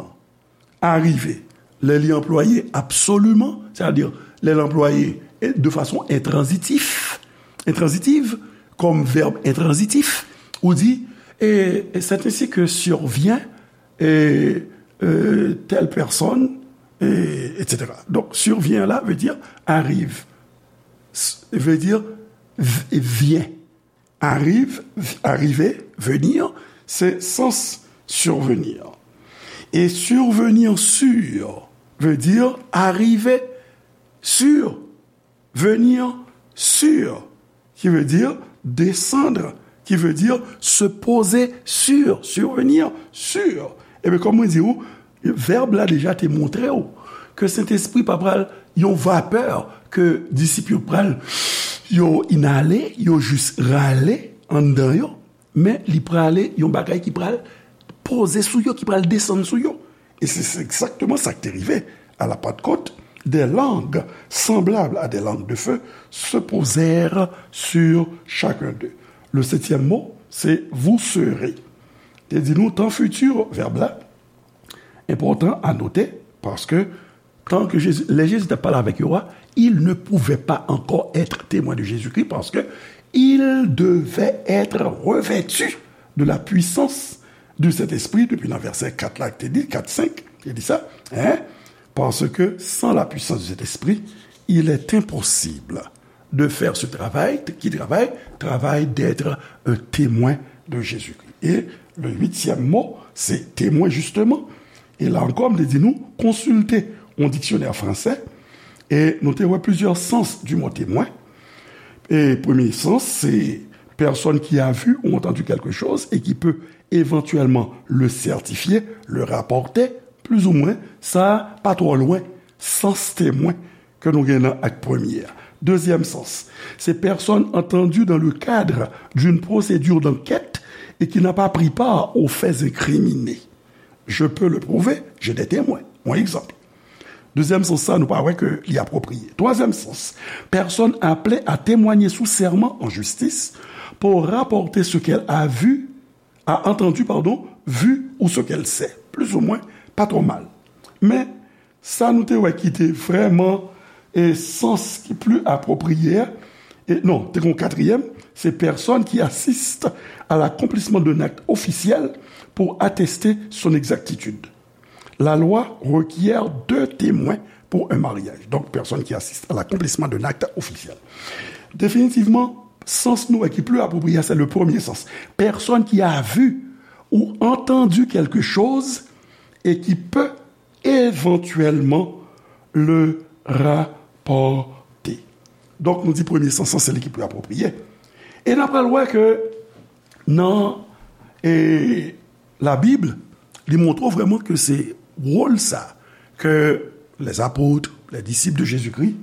arive. Lè li anplwaye absoliman, sètadi lè l anplwaye de fason entranzitif, entranzitiv, kòm vèb entranzitif, ou di, et, et c'est ainsi que survient, et, euh, telle personne, et, et cetera. Donk, survient la vle di arive. S-, vle di v-, vyen. Arrive, arriver, venir, se sans survenir. E survenir sur vle di arive sur, venir sur, ki vle di desann, ki vle di se poze sur, survenir sur. Ebyen, kòm mwen di w, vèb la deja te montre w ke Sentespri pa pral yon vapè ke disip yo pral, yo inale, yo jis rale anndan yo, men li prale yon bagay ki pral poze sou yo, ki pral desann sou yo. E se, se egzakteman sa ki te rive. À la Pentecôte, des langues semblables à des langues de feu se posèrent sur chacun d'eux. Le septième mot, c'est vous serez. Te di nou tan fiti, vèb la, enpòtan a note, paske tan ke Jezi, lè Jezi t ap pale avèk yo a, ils ne pouvaient pas encore être témoins de Jésus-Christ parce que ils devaient être revêtus de la puissance du Saint-Esprit, depi nan vèsè kat la, te di, kat, senk, te di sa, hein? Parce que sans la puissance du Saint-Esprit, il est impossible de faire ce travail. Ki travay? Travay d'être un témoin de Jésus-Christ. Et le huitième mot, c'est témoin, justement. E la ankò, m te di nou, konsilte yon diksyonè fransè, e nou te wè plizyè sans du mot témoin. E premye sans, se personne qui a vu ou entendu quelque chose et qui peut éventuellement le certifier, le rapporter, plus ou moins, sa pa twò lwen, sans témoin ke nou gen nan ak premye a. Dezyèm sans, se personne entendue dans le cadre d'une procédure d'enquête et qui n'a pas pris part aux faits incriminés. Je peux le prouver, j'ai des témoins. Yon egzanp. Dezyèm sans sa, nou pa wè ke li apwopriye. Twazyèm sans, personne appelée à témoigner sous serment en justice pour rapporter ce qu'elle a vu, a entendu, pardon, vu ou ce qu'elle sait. Plus ou moins, pa twò mal. Men, sa nou te wè ki te vrèman e sans ki pli apwopriye a, e non, te gen yon katriyèm, c'est personne qui assiste à l'accomplissement d'un acte officiel pour attester son exactitude. La loi requiert deux témoins pour un mariage. Donc, personne qui assiste à l'accomplissement d'un acte officiel. Définitivement, sans nou ki pli apwopriye, c'est le premier sens. Personne qui a vu ou entendu quelque chose et qui peut éventuellement le rapporter. Donk, nou di premye sans, se li ki pli apwopriye. E n ap pral wè ke nan e, Labib, li montre w vrèman ke se wòl sa ke les apôtres, les disciples de Jésus-Christ,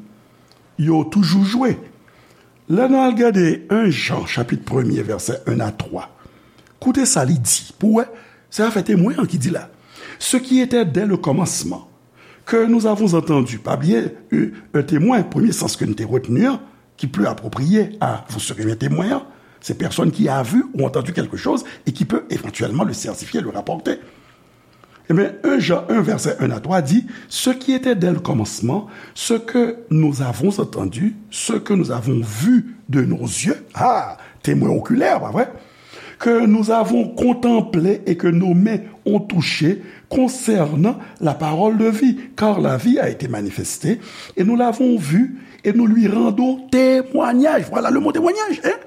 yo toujou jwe. Lè nou al gade en Jan, chapit premye, vèsè en a twa, koute sa li di, pou w wè, se afè temwen an ki di la. Ce qui était dès le commencement, que nous avons entendu, pa bliye, un témoin, premye sans ke n te retni an, ki pli apwopriye a vous serez mes témoins, c'est personne qui a vu ou entendu quelque chose et qui peut éventuellement le certifier, le rapporter. Ebyen, en Jan en, vèsè en a twa di, ce qui était dès le commencement, ce que nous avons entendu, ce que nous avons vu de nos yeux, ah, temwen okilè, pa vre? Que nous avons contemplé et que nos mains ont touché concernant la parole de vie, car la vie a été manifestée, et nous l'avons vue, et nous lui rendons témoignage. Voilà le mot témoignage, hein?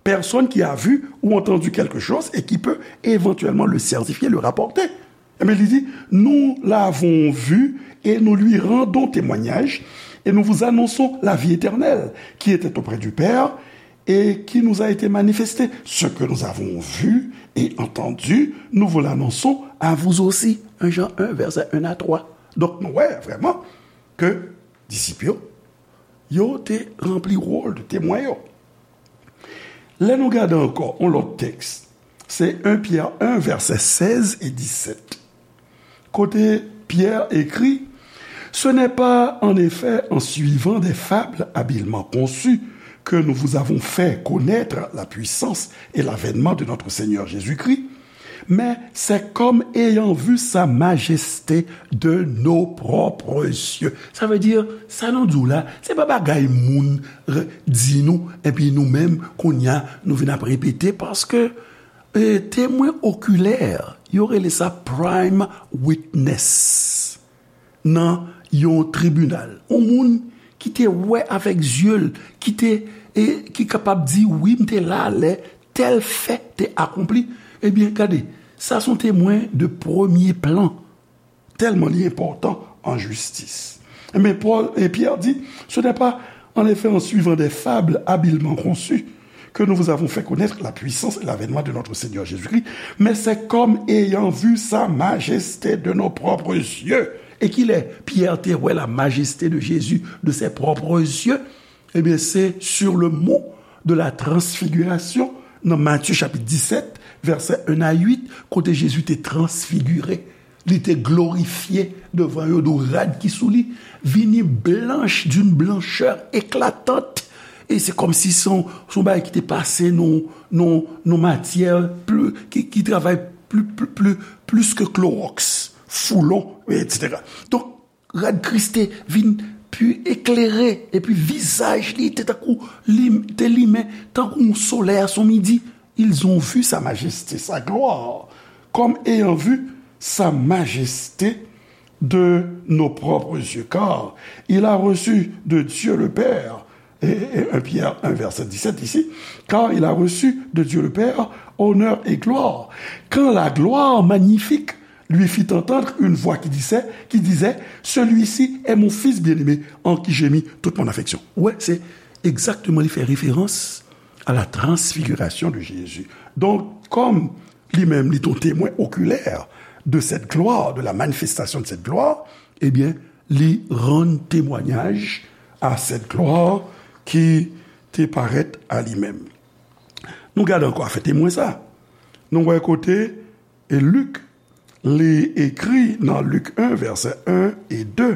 Personne qui a vu ou entendu quelque chose et qui peut éventuellement le certifier, le rapporter. Ebyen, li di, nous l'avons vu et nous lui rendons témoignage, et nous vous annonçons la vie éternelle qui était auprès du Père et qui nous a été manifestée. Ce que nous avons vu et entendu, nous vous l'annonçons à vous aussi. En Jan en, vèsè en a twa. Donk, nou wè vrèman ke disip yo, yo te ranpli wòl de temwen yo. Lè nou gade ankò yon lòt tèks, se en Pyè en, vèsè sèz e disèt. Kote Pyè ekri, ce n'est pas en effet en suivant des fables habilement conçues que nous vous avons fait connaître la puissance et l'avènement de notre Seigneur Jésus-Christ, mais c'est comme ayant vu sa majesté de nos propres yeux. Sa vle di, sa nou di w la, se pa bagay moun di nou, epi nou menm, kounye a, nou vin ap repete, paske e, temwen okilè, yo rele sa prime witness nan yon tribinal. Yon moun ki te wè avèk zye l, ki te, e, ki kapab di, wi, m te la lè tèl fè te akonpli. Ebyen, gade, sa se yon temwen de premye plan. Tèlman li enpòtan an jistis. Men Pòl e Pyè di, ce n'est pas en effet en suivant des fables habilement conçues que nous vous avons fait connaître la puissance et l'avènement de notre Seigneur Jésus-Christ, mais c'est comme ayant vu sa majesté de nos propres yeux. E kilè Pyè te wè la majesté de Jésus de ses propres yeux? Ebyen, se sur le mont de la transfiguration, nan Matye chapit disèt, vèsè en a uit, kote Jezi te transfigire, li te glorifye devan yo, dou rad ki sou li vini blanch d'une blancheur éclatante. E se kòmsi se yon, se yon bagay ki te pase nan, nan, nan matyè pli, ki, ki travay pli, pli, pli, plis ke klowòks, foulon, etsetera. Donk, rad Kris te vin pi eklere, epi vizaj li te tankou li te limen, tankou yon solèy a son midi. Ils ont vu sa majesté, sa gloire, comme ayant vu sa majesté de nos propres yeux, car il a reçu de Dieu le Père Et, et un Pierre un verset dix-sept ici, car il a reçu de Dieu le Père honneur et gloire. Quand la gloire magnifique lui fit entendre une voix qui disait, qui disait, celui-ci est mon fils bien-aimé en qui j'ai mis toute mon affection. Wè, se egzakteman, li fè referans à la transfiguration de Jésus. Donc, comme li menm, li te yon temwen okilè de cette gloire, de la manifestation de cette gloire, ebyen, li rann temwayaj à cette gloire ki te parèt a li menm. Nou gade ankò afè temwen sa. Nou wè kote, e Lik, li ekri nan Lik en, vèsè en e de,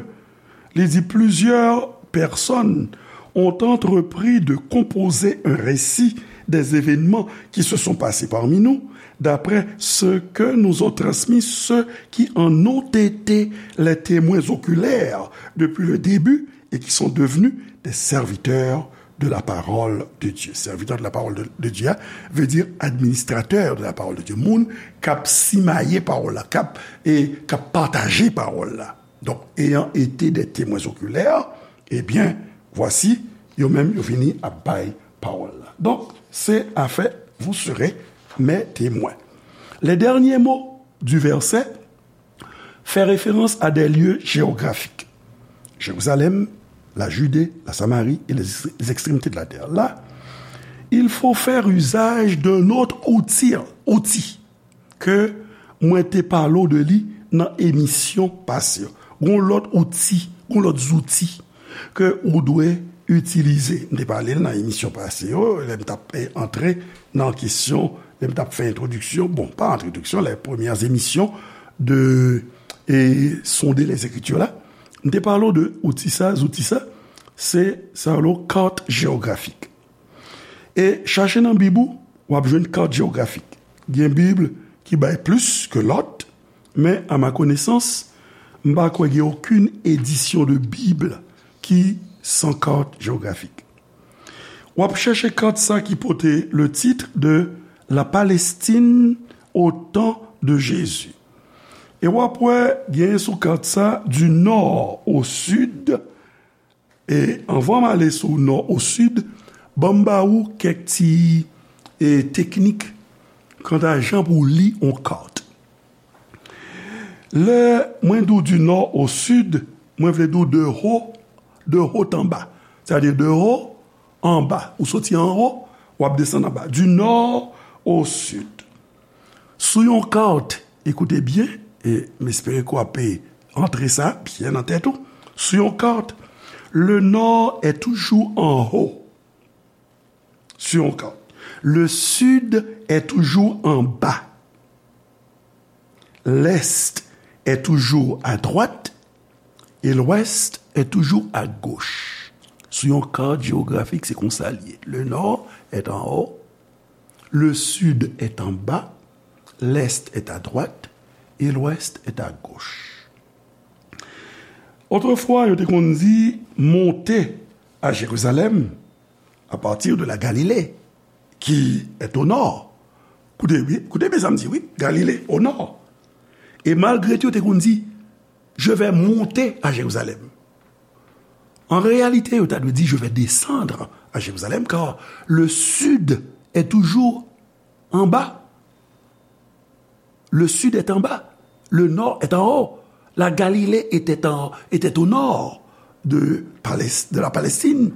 li di, plusieurs personnes ont entrepris de composer un récit des événements qui se sont passés parmi nous, d'après ce que nous ont transmis ceux qui en ont été les témoins oculaires depuis le début et qui sont devenus des serviteurs de la parole de Dieu. Serviteur de la parole de, de Dieu, hein, veut dire administrateur de la parole de Dieu. Moun k ap simaye pawòl la, k ap, e k ap pataje pawòl la. Donc, ayant été des témoins oculaires, eh bien, voici, yo menm, yo vini ap bay pawòl la. Donc, c'est affaire, vous serez mes témoins. Les derniers mots du verset fait référence à des lieux géographiques. Jérusalem, la Judée, la Samarie et les, les extrémités de la terre. Là, il faut faire usage d'un autre outil, outil ke mwen te pale w de li nan emisyon pase yo. Gon lòt outi, gon lòt zouti ke ou dwe itilize. M te pale l nan emisyon pase yo, lè m t ap, eh, antre nan kesyon, lè m t ap fè entwodiksyon, bon, pa entwodiksyon, les premières émissions de, eh, Sonder les Écritures la. M te pale w de outi sa, zouti sa, se sa yo rele carte géographique. E chache nan Bib ou, w ap jwenn kat jewografik. Gen Bib ki bay plis ke lòt, men, à ma connaissance, m pa kwè gen okenn edisyon de Bib ki san kat jewografik. W ap chèche kat sa ki pote le titre de La Palestine au temps de Jésus. E w ap wè, gen sou kat sa, du nord au sud, E anvan m ale sou nò o sid, ban m ba ou kèk ti, e, teknik kanta jan pou w li yon kat. Lè mwen di w du nord au sud, mwen vle di w de haut, de haut en bas. Sètadi de haut en bas. Ou soti anwo, w ap desann anba. Du nord au sud. Sou yon kat, ekoute byen, e m espere ke w ap antre sa byen nan tèt ou. Sou yon kat, le nord est toujours en haut. Sur yon kat. Le sud est toujours en bas. L'est est toujours à droite et l'ouest est toujours à gauche. Sou yon kat jewografik, se konsa l ye. Le nord est en haut, le sud est en bas, l'est est à droite et l'ouest est à gauche. Otrefwa, yo te konn di, monte à Jérusalem à partir de la Galilée, qui est au nord. Koute byen, koute byen sa m di, wi, Galile, au nord. E malgre tou, yo te konn di, je vais monter à Jérusalem. En réalité, yo ta dwe di, je vais descendre à Jérusalem, car le sud est toujours en bas. Le sud est en bas, le nord est en haut. La Galilée était en, était au nord de Palès-, de la Palestine.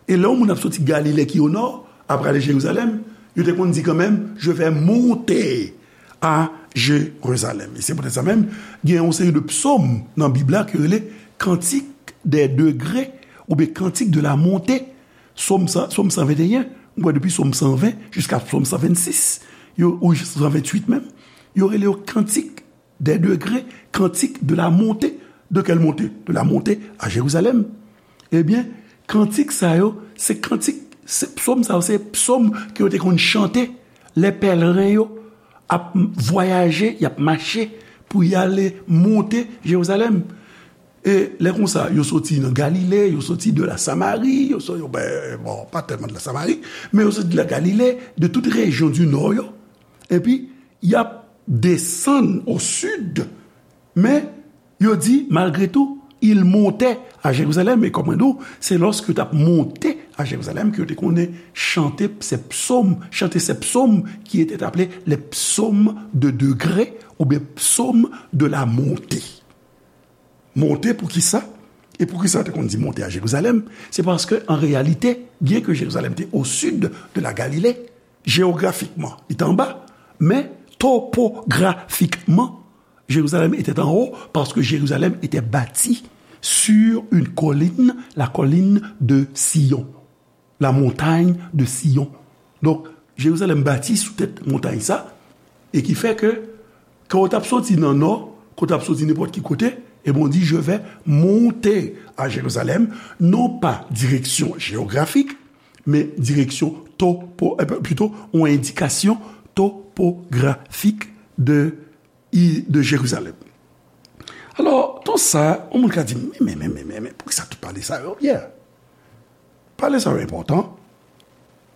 E lè yon moun ap soti Galile ki o nò, ap prale Jerizalèm, yo te konn di kanmenm, je vais monter à Jérusalem. E se poutèt sa menm, gen yon seri de psòm nan Bib la ki rele Cantique des degrés oubyen Cantique de la montée. Sòm san, Sòm san venteyen, m kwè depi Sòm san ven jiska Sòm san vennsis, yo, ou san venntuit menm, yo rele yo kantik des degrés, cantique de la montée. De quelle montée? De la montée à Jérusalem. Ebyen, kantik sa yo, se kantik, se psòm sa yo, se psòm ke yo te konn chante lè pèleren yo ap vwayaje, y ap mache pou y ale monte Jerizalèm. E lè konsa, yo soti nan Galile, yo soti de la Samari, yo soti, yo, ben, bon, pa tèlman de la Samari, men yo soti de la Galile, de tout rejyon di nò yo. Epi, y ap desann o sid, men yo di, malgre tou, il montait à Jérusalem. E kòm mwen di w, se lòske yo t ap monte à Jérusalem ke yo te konnen chante se psaume, chanter ces psaumes qui étaient appelés les psaumes de degré oubyen psaumes de la montée. Monte pou ki sa? E pou ki sa yo te konn di monte à Jérusalem? Se paske, an reyalite, byen ke Jerizalèm te au sud de la Galilée, géographiquement, li te anba, men topografikman, Jérusalem était en haut parce que Jérusalem était bâtie sur une colline, la colline de Sion, la montagne de Sion. Donk, Jerizalèm bati sou tèt montay sa, e ki fè ke, kan w t ap soti nan nò, kan w t ap soti nenpòt ki kote, e bon, di, je vais monter à Jérusalem, non pas direction géographique, mais direction topo, euh, plutôt, une indication topographique de, de Jérusalem. Alò, tout sa, yon moun ka di, men, men, men, men, men, poukisa tout pale sa yo, Pierre? Pale sa yo enpòtan.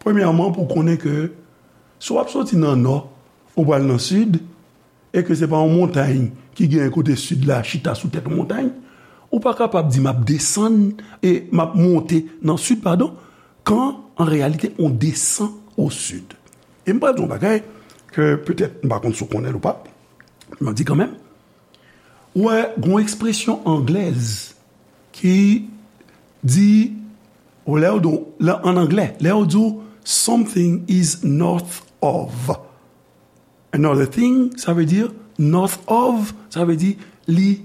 Premyèman, pou konnen ke si w ap soti nan nò, ou pral nan sid, e ke se pa yon montay ki gen kote sid la chita sou tèt yon montay, ou pa kapab di, m ap desann, e m ap monte nan sid, padon, kan, an reyalite, on desann o sid. E m pral di yon bagay ke petèt m pa konn si w konnen l ou pa, m ap di kanmenm. Ou wè, gen yon ekspresyon anglèz ki di, ou lè yo di, lè, an anglè, lè yo di w, something is north of another thing, sa vle di, north of, sa vle di, li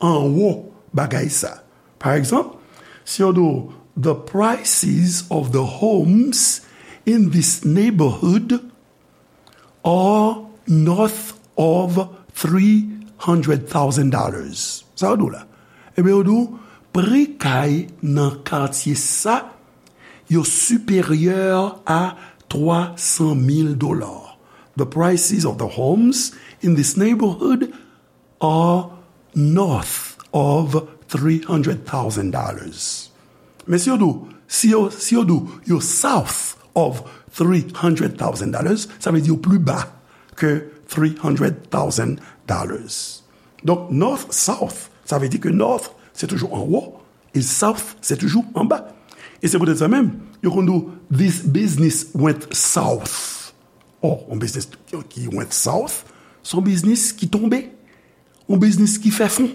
anwo bagay sa. Pa egzanp, si yo di w, the prices of the homes in this neighborhood are north of three hundred thousand dollars. Sa yo di w la? Ebyen, yo di w, pri kay nan katye sa, yo siperyè a twa san mil dola. The prices of the homes in this neighborhood are north of three hundred thousand dollars. Men si yo di w, si yo, si yo di w, yo south of three hundred thousand dollars, sa vle di yo pli ba ke three hundred thousand dollars. Donk, north, south, sa vle di ke north, se toujou anwo, e south, se toujou anba. E se poutèt sa menm, yo konn di w, this business went south. Oh, yon biznis ki went south, se yon biznis ki tonbe, yon biznis ki fè fon,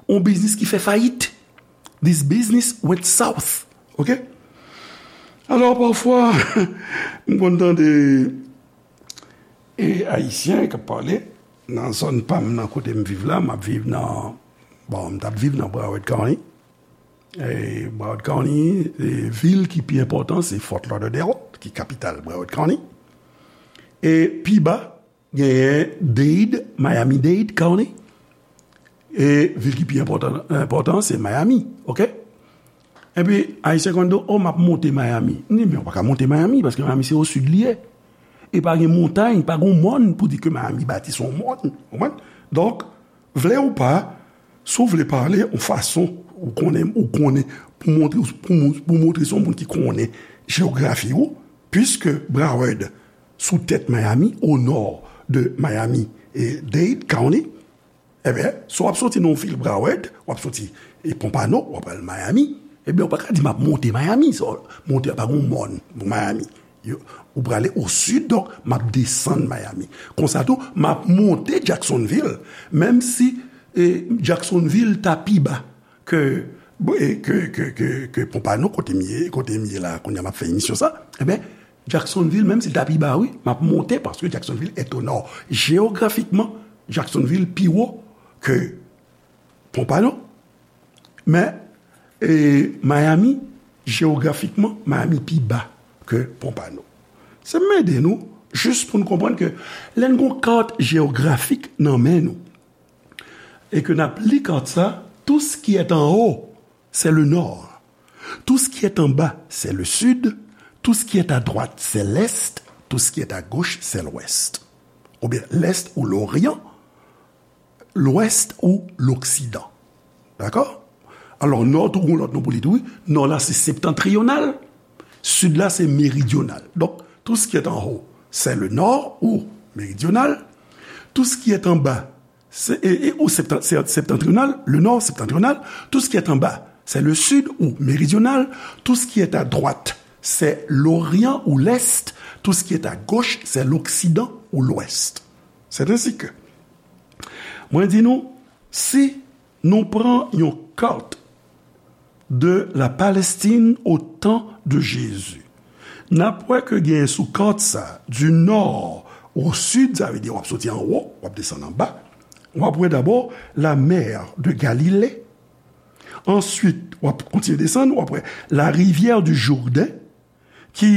yon biznis ki fè fayit. This business went south. Ok? Alò, pafwa, m konn tande e Ayisyen k ap pale nan zòn pa m nan kote m viv la, m ap viv nan, bon, m t ap viv nan Broward County. E Broward County, e vil ki pi enpòtan, se Fort Lauderdale, ki kapital Broward County. E pi ba, genyen Dade, Miami-Dade County. E vil ki pi enpòtan, enpòtan, se Miami, ok? Epi, Ayisyen konn di, oh, m ap monte Miami. M di, men ou pa ka monte Miami, paske Miami se o sid li ye. E pa gen montay, pa gen mòn pou di ke Miami bati sou yon mòn. Ou konprann? Donk, vle ou pa, si w vle pale yon fason, ou konnen, ou konnen, pou montre, pou, pou montre se yon moun ki konnen jeyografi ou, puiske Broward sou tèt Miami, o nò de Miami e Dade County, ebyen, si w ap soti nan yon vil Broward, w ap soti e Pompano, w ap al Miami, ebyen, ou pa ka di m ap monte Miami, sa, monte a pa gen yon mòn pou Miami. Yo, ou prale o sid, donk, m ap desann Miami. Konsa tou, m ap monte Jacksonville, menm si e, Jacksonville ta pi ba ke, e, ke, ke, ke, ke Pompano, kote m ye, kote m ye la, kounye a m ap fè emisyon sa, ebyen, Jacksonville, menm si l ta pi ba, wi, m ap monte, paske Jacksonville est au nord. Jeyografikman, Jacksonville pi wo ke Pompano. Men, e, Miami, jeyografikman, Miami pi ba ke Pompano. Se m ede nou, jis pou n konprann ke lè n gon kat jeyografik nan men nou, e ke n ap li kat sa, tout ce qui est en haut, c'est le nord. Tout ce qui est en bas, c'est le sud. Tout ce qui est à droite, c'est l'est. Tout ce qui est à gauche, c'est l'ouest. Oubyen l'est ou l'orient, l'ouest ou l'occident. Dakò? Alò, nò tou gon lòt non pou li tou, wi. Nò la, se septentrional. Sid la, se méridional. Donc, tout ce qui est en haut, c'est le nord ou méridional. Tout ce qui est en bas, c'est, et, et, ou septen-, c'est septentrional, le nord septentrional. Tout ce qui est en bas, c'est le sud ou méridional, tout ce qui est à droite, c'est l'orient ou l'est, tout ce qui est à gauche, c'est l'occident ou l'ouest. C'est ainsi que, mwen di nou, si nou pran yon kat de la Palestine au temps de Jésus, n ap wè ke gen sou kat sa, du nord au sud, sa vle di w ap soti anwo, w ap desann anba, w ap wè dabò la mer de Galilée, answit, w ap kontinye desann, w ap wè la rivière du Jourdain, ki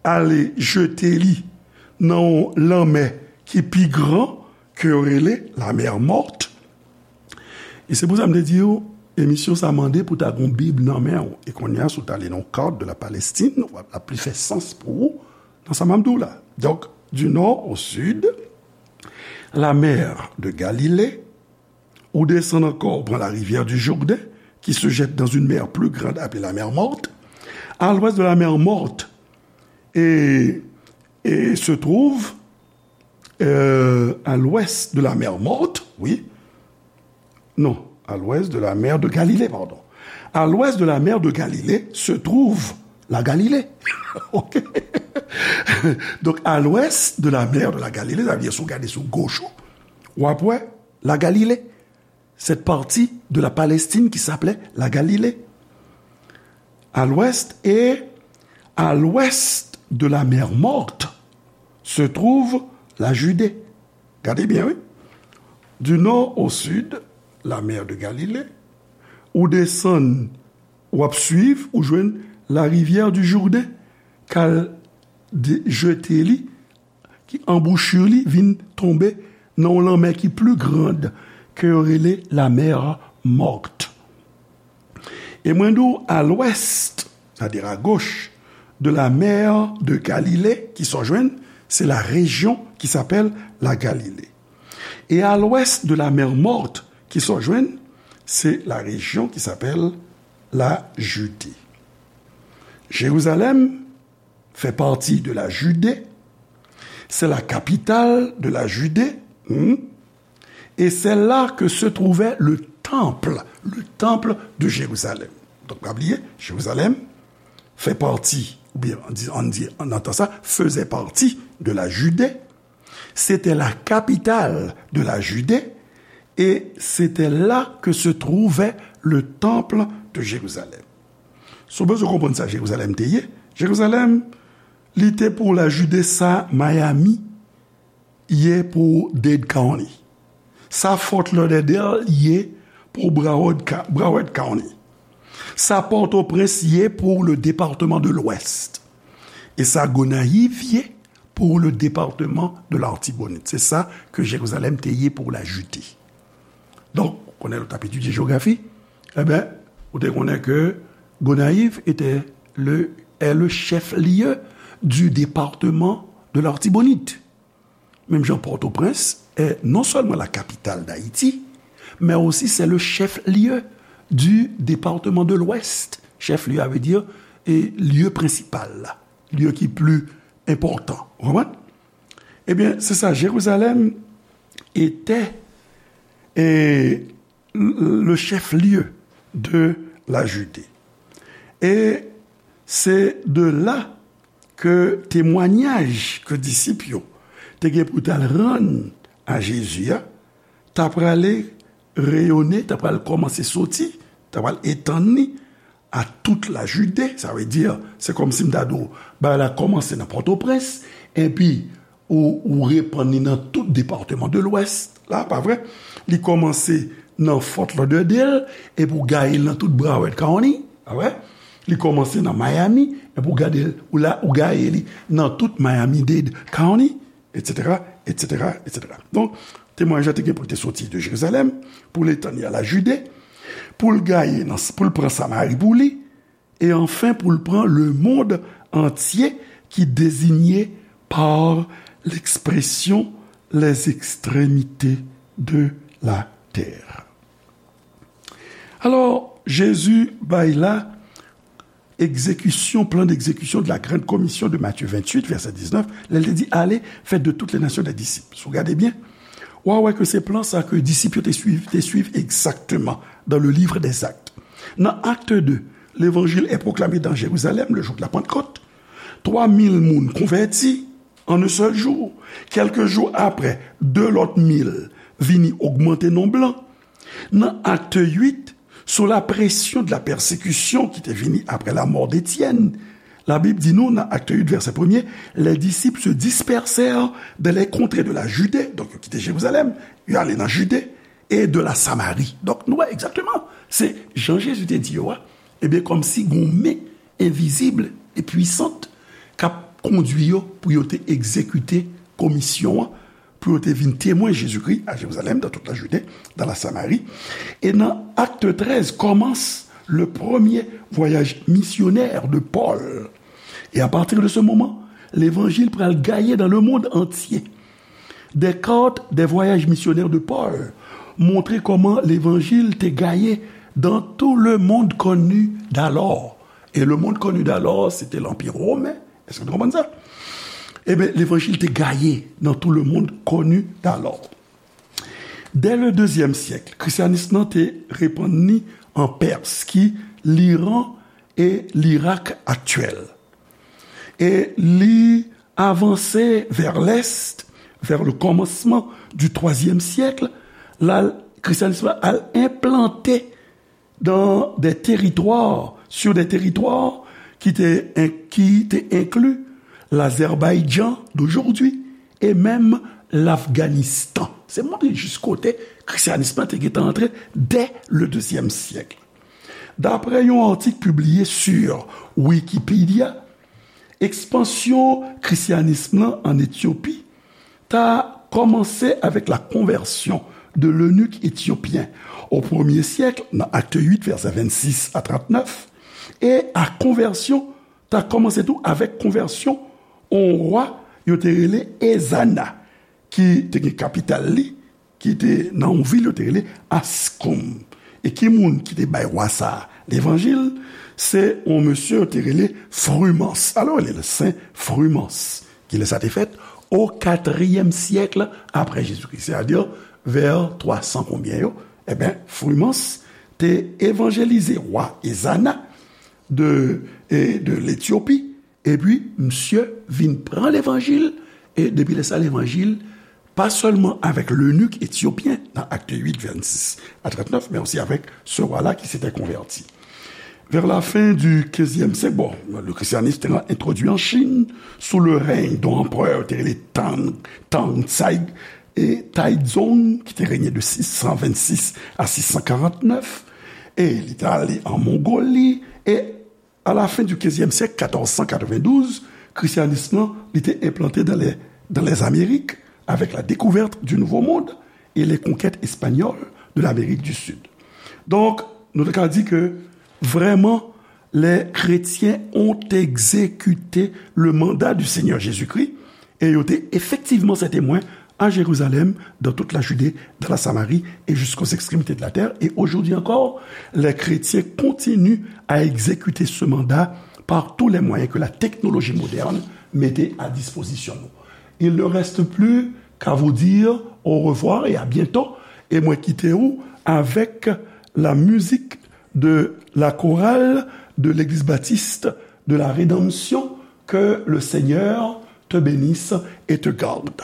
ale jete li nan yon lanmè ki pi gran, ke yo rele la mer Morte. E se pou sa m te di w, emisyon sa mande pou ta gon Bib nan men w. E kounye a, si w ta li nan yon kat de la Palestine, w ap, l ap pli fè sans pou ou nan sa m ap di w la. Donk, du nord au sud, la mer de Galilée, ou desann ankò, ou pran la rivière du Jourdain, qui se jette dans une mer plus grande appelée la mer Morte. À l'ouest de la mer Morte, et, et se trouve, euh, à l'ouest de la mer Morte, oui, non, à l'ouest de la mer de Galilée, pardon. À l'ouest de la mer de Galilée se trouve la Galilée. OK? Donc, à l'ouest de la mer de la Galilée, sa vle di, si w gade sou goch ou, w ap wè la Galilée, cette partie de la Palestine qui s'appelait la Galilée. À l'ouest et à l'ouest de la mer Morte se trouve la Judée. Gade byen, wi. Du nord au sud, la mer de Galilée, ou desann, w ap swiv, ou jwenn la rivière du Jourdain, k al de-, jete li ki anbouchi li vin tonbe nan yon lanmè ki pli grand ke yo rele la mer Morte. E mwen di w, à l'ouest, c'est-à-dire à gauche, de la mer de Galilée, kisa w jwenn, c'est la région qui s'appelle la Galilée. Et à l'ouest de la mer Morte, kisa w jwenn, c'est la région qui s'appelle la Judée. Jérusalem fait partie de la Judée. C'est la capitale de la Judée. Hmm. Et c'est là que se trouvait le temple, le temple de Jérusalem. Donk, pa bliye, Jérusalem fait partie, oubyen, an di, an di, an antan sa, faisait partie de la Judée. C'était la capitale de la Judée et c'était là que se trouvait le temple de Jérusalem. Si w bezwen konprann sa Jerizalèm te ye, Jerizalèm, li te pou la Jide sa Miami ye pou Dade County. Sa Fort Lauderdale ye pou Broward Ca-, Broward County. Sa Pòtoprens ye pou le département de l'Ouest. E sa Gonayiv ye pou le département de l'Artibonite. Se sa ke Jerizalèm te ye pou la Jide. Donk, ou konnen lè w t ap etidye jewografi, enben, ou te konnen ke Gonayiv était le, est le chef-lieu du département de l'Artibonite. Menm jan Pòtoprens est non seulement la capitale d'Haïti, mais aussi c'est le chef-lieu du département de l'Ouest. Chef-lieu, sa vle di, e, lye prensipal la, lye ki pli enpòtan. Ou konprann? Ebyen, se sa, Jerizalèm était, e, le chef-lieu de la Judée. E se de la ke temwanyaj ke disip yo te gen pou t al rann a Jezi a, ta prale reyone, ta pral kòmanse soti, ta pral etann li a tout la Jide, sa vle di, se kòmsi m ta di w, bagay la kòmanse nan Pòtoprens, epi ou, ou repann li nan tout depatman de Lwès la, pa vre? Li kòmanse nan Fort Lauderdale, epi ou gaye l nan tout Broward County, pa vre? Li kòmanse nan Miami, epi ou gade l, ou la, ou gaye li nan tout Miami-Dade County, etsetera, etsetera, etsetera. Donk, temwayaj la te gen pou l te soti de Jerizalèm, pou l etann li a la Jide, pou l gaye nan, pou l pran Samari pou li, e anfen pou l pran le monde entier ki dezinye par l'expression les extrémités de la terre. Alò, Jezi bay la egzekisyon, plan d'exécution de la grande commission de Matthieu vingt-huit, verset dix-neuf, lè l te di, allez, faites de toutes les nations des disciples. Si w gade byen, w a wè ke se plan sa ke disip yo te swiv, te swiv egzakteman dans le livre des Actes. Nan Acte deux, l'évangile est proclamé dans Jérusalem le jour de la Pentecôte. Trois mille moun konvèti en un seul jour. Quelques jours après, deux lòt mil vini ogmante nonb lan. Nan Acte huit, sous la pression de la persécution ki te vini après la mort d'Étienne, la Bible di nou nan Acte huit, verset premier, les disciples se dispersèrent dans les contrées de la Judée, donk yo kite Jerizalèm, yo ale nan Jide, et de la Samarie. Donk nou wè egzakteman, se jan Jezi te di yo a, ebyen, kòmsi gon men envizib e pwisant k ap kondwi yo pou yo te egzekite komisyon an, pou yo te vin temwen Jezikri a Jerizalèm, dans toute la Judée, dans la Samarie. E nan Acte treize, commence le premier voyage missionnaire de Paul. Et à partir de ce moment, l'évangile pral gaye dans le monde entier. Des cartes des voyages missionnaires de Paul montre kòman levanjil te gaye dans tout le monde connu d'alors. Et le monde connu d'alors, c'était l'Empire romain. Èske nou konprann sa? Ebyen, levanjil te gaye dans tout le monde connu d'alors. Dès le deuxième siècle, krisyanis lan te repann li an Pès, ki Liran e Lirak aktyèl. E li avanse vers l'est, vers le commencement du troisième siècle, la, christianisme al enplante dans des territoires, sur des territoires qui étaient, qui étaient inclus l'Azerbaïdjan d'aujourd'hui et même l'Afghanistan. Se montre jis kote christianisme te gentan antre dès le deuxième siècle. Daprè yon atik pibliye sur Wikipedia, ekspansyon christianisme lan an Etyopi ta kòmanse avec la conversion de l'eunuque éthiopien au premier siècle, dans Acte huit, versets vingt-six à trente-neuf, e a konvèsyon ta kòmanse tou avèk konvèsyon yon wa yo te rele Ezana, ki te gen kapital li, ki te nan yon vil yo te rele Ascombe. E ki moun ki te bay wa sa a levanjil? Se yon mesye yo te rele Frumance. Alò, li rele Sen Frumance. Kilè sa te fèt? O katriyèm syèk apre Jezikri, sètadi vè twa san konbyen yo. Ebyen, Frumance te evanjelize wa Ezana de, e, de Letyopi, epi misye vin pran levanjil, e depi lè sa, levanjil, pa sèlman avèk lenik etyopyen nan Acte huit, vingt-six à trente-neuf, mais aussi avec ce roi-là qui s'était converti. Vers la fin du quinzième siècle, bon, le christianisme était introduit en Chine sous le règne d'un empereur qui était Tang, Tang Tsai, et Taizong, qui était régné de six cent vingt-six à six cent quarante-neuf, et il est allé en Mongolie, et à la fin du quinzième siècle, quatorze cent quatre-vingt-douze, christianisme, il était implanté dans les, dans les Amériques avec la découverte du Nouveau Monde et les conquêtes espagnoles de l'Amérique du Sud. Donk, nou ta ka di ke vrèman, les chrétiens ont exécuté le mandat du Seigneur Jésus-Christ, e yo te efektivman sen temwen à Jérusalem, dans toute la Judée, dans la Samarie et jusqu'aux extrémités de la terre. Et aujourd'hui encore, les chrétiens continuent à exécuter ce mandat par tous les moyens que la technologie moderne mettait à disposition nous. Il ne reste plus qu'à vous dire au revoir et à bientôt. E mwen kite ou avèk la mizik de la chorale de l'Église baptiste de la Rédemption. Que le Seigneur te bénisse et te garde.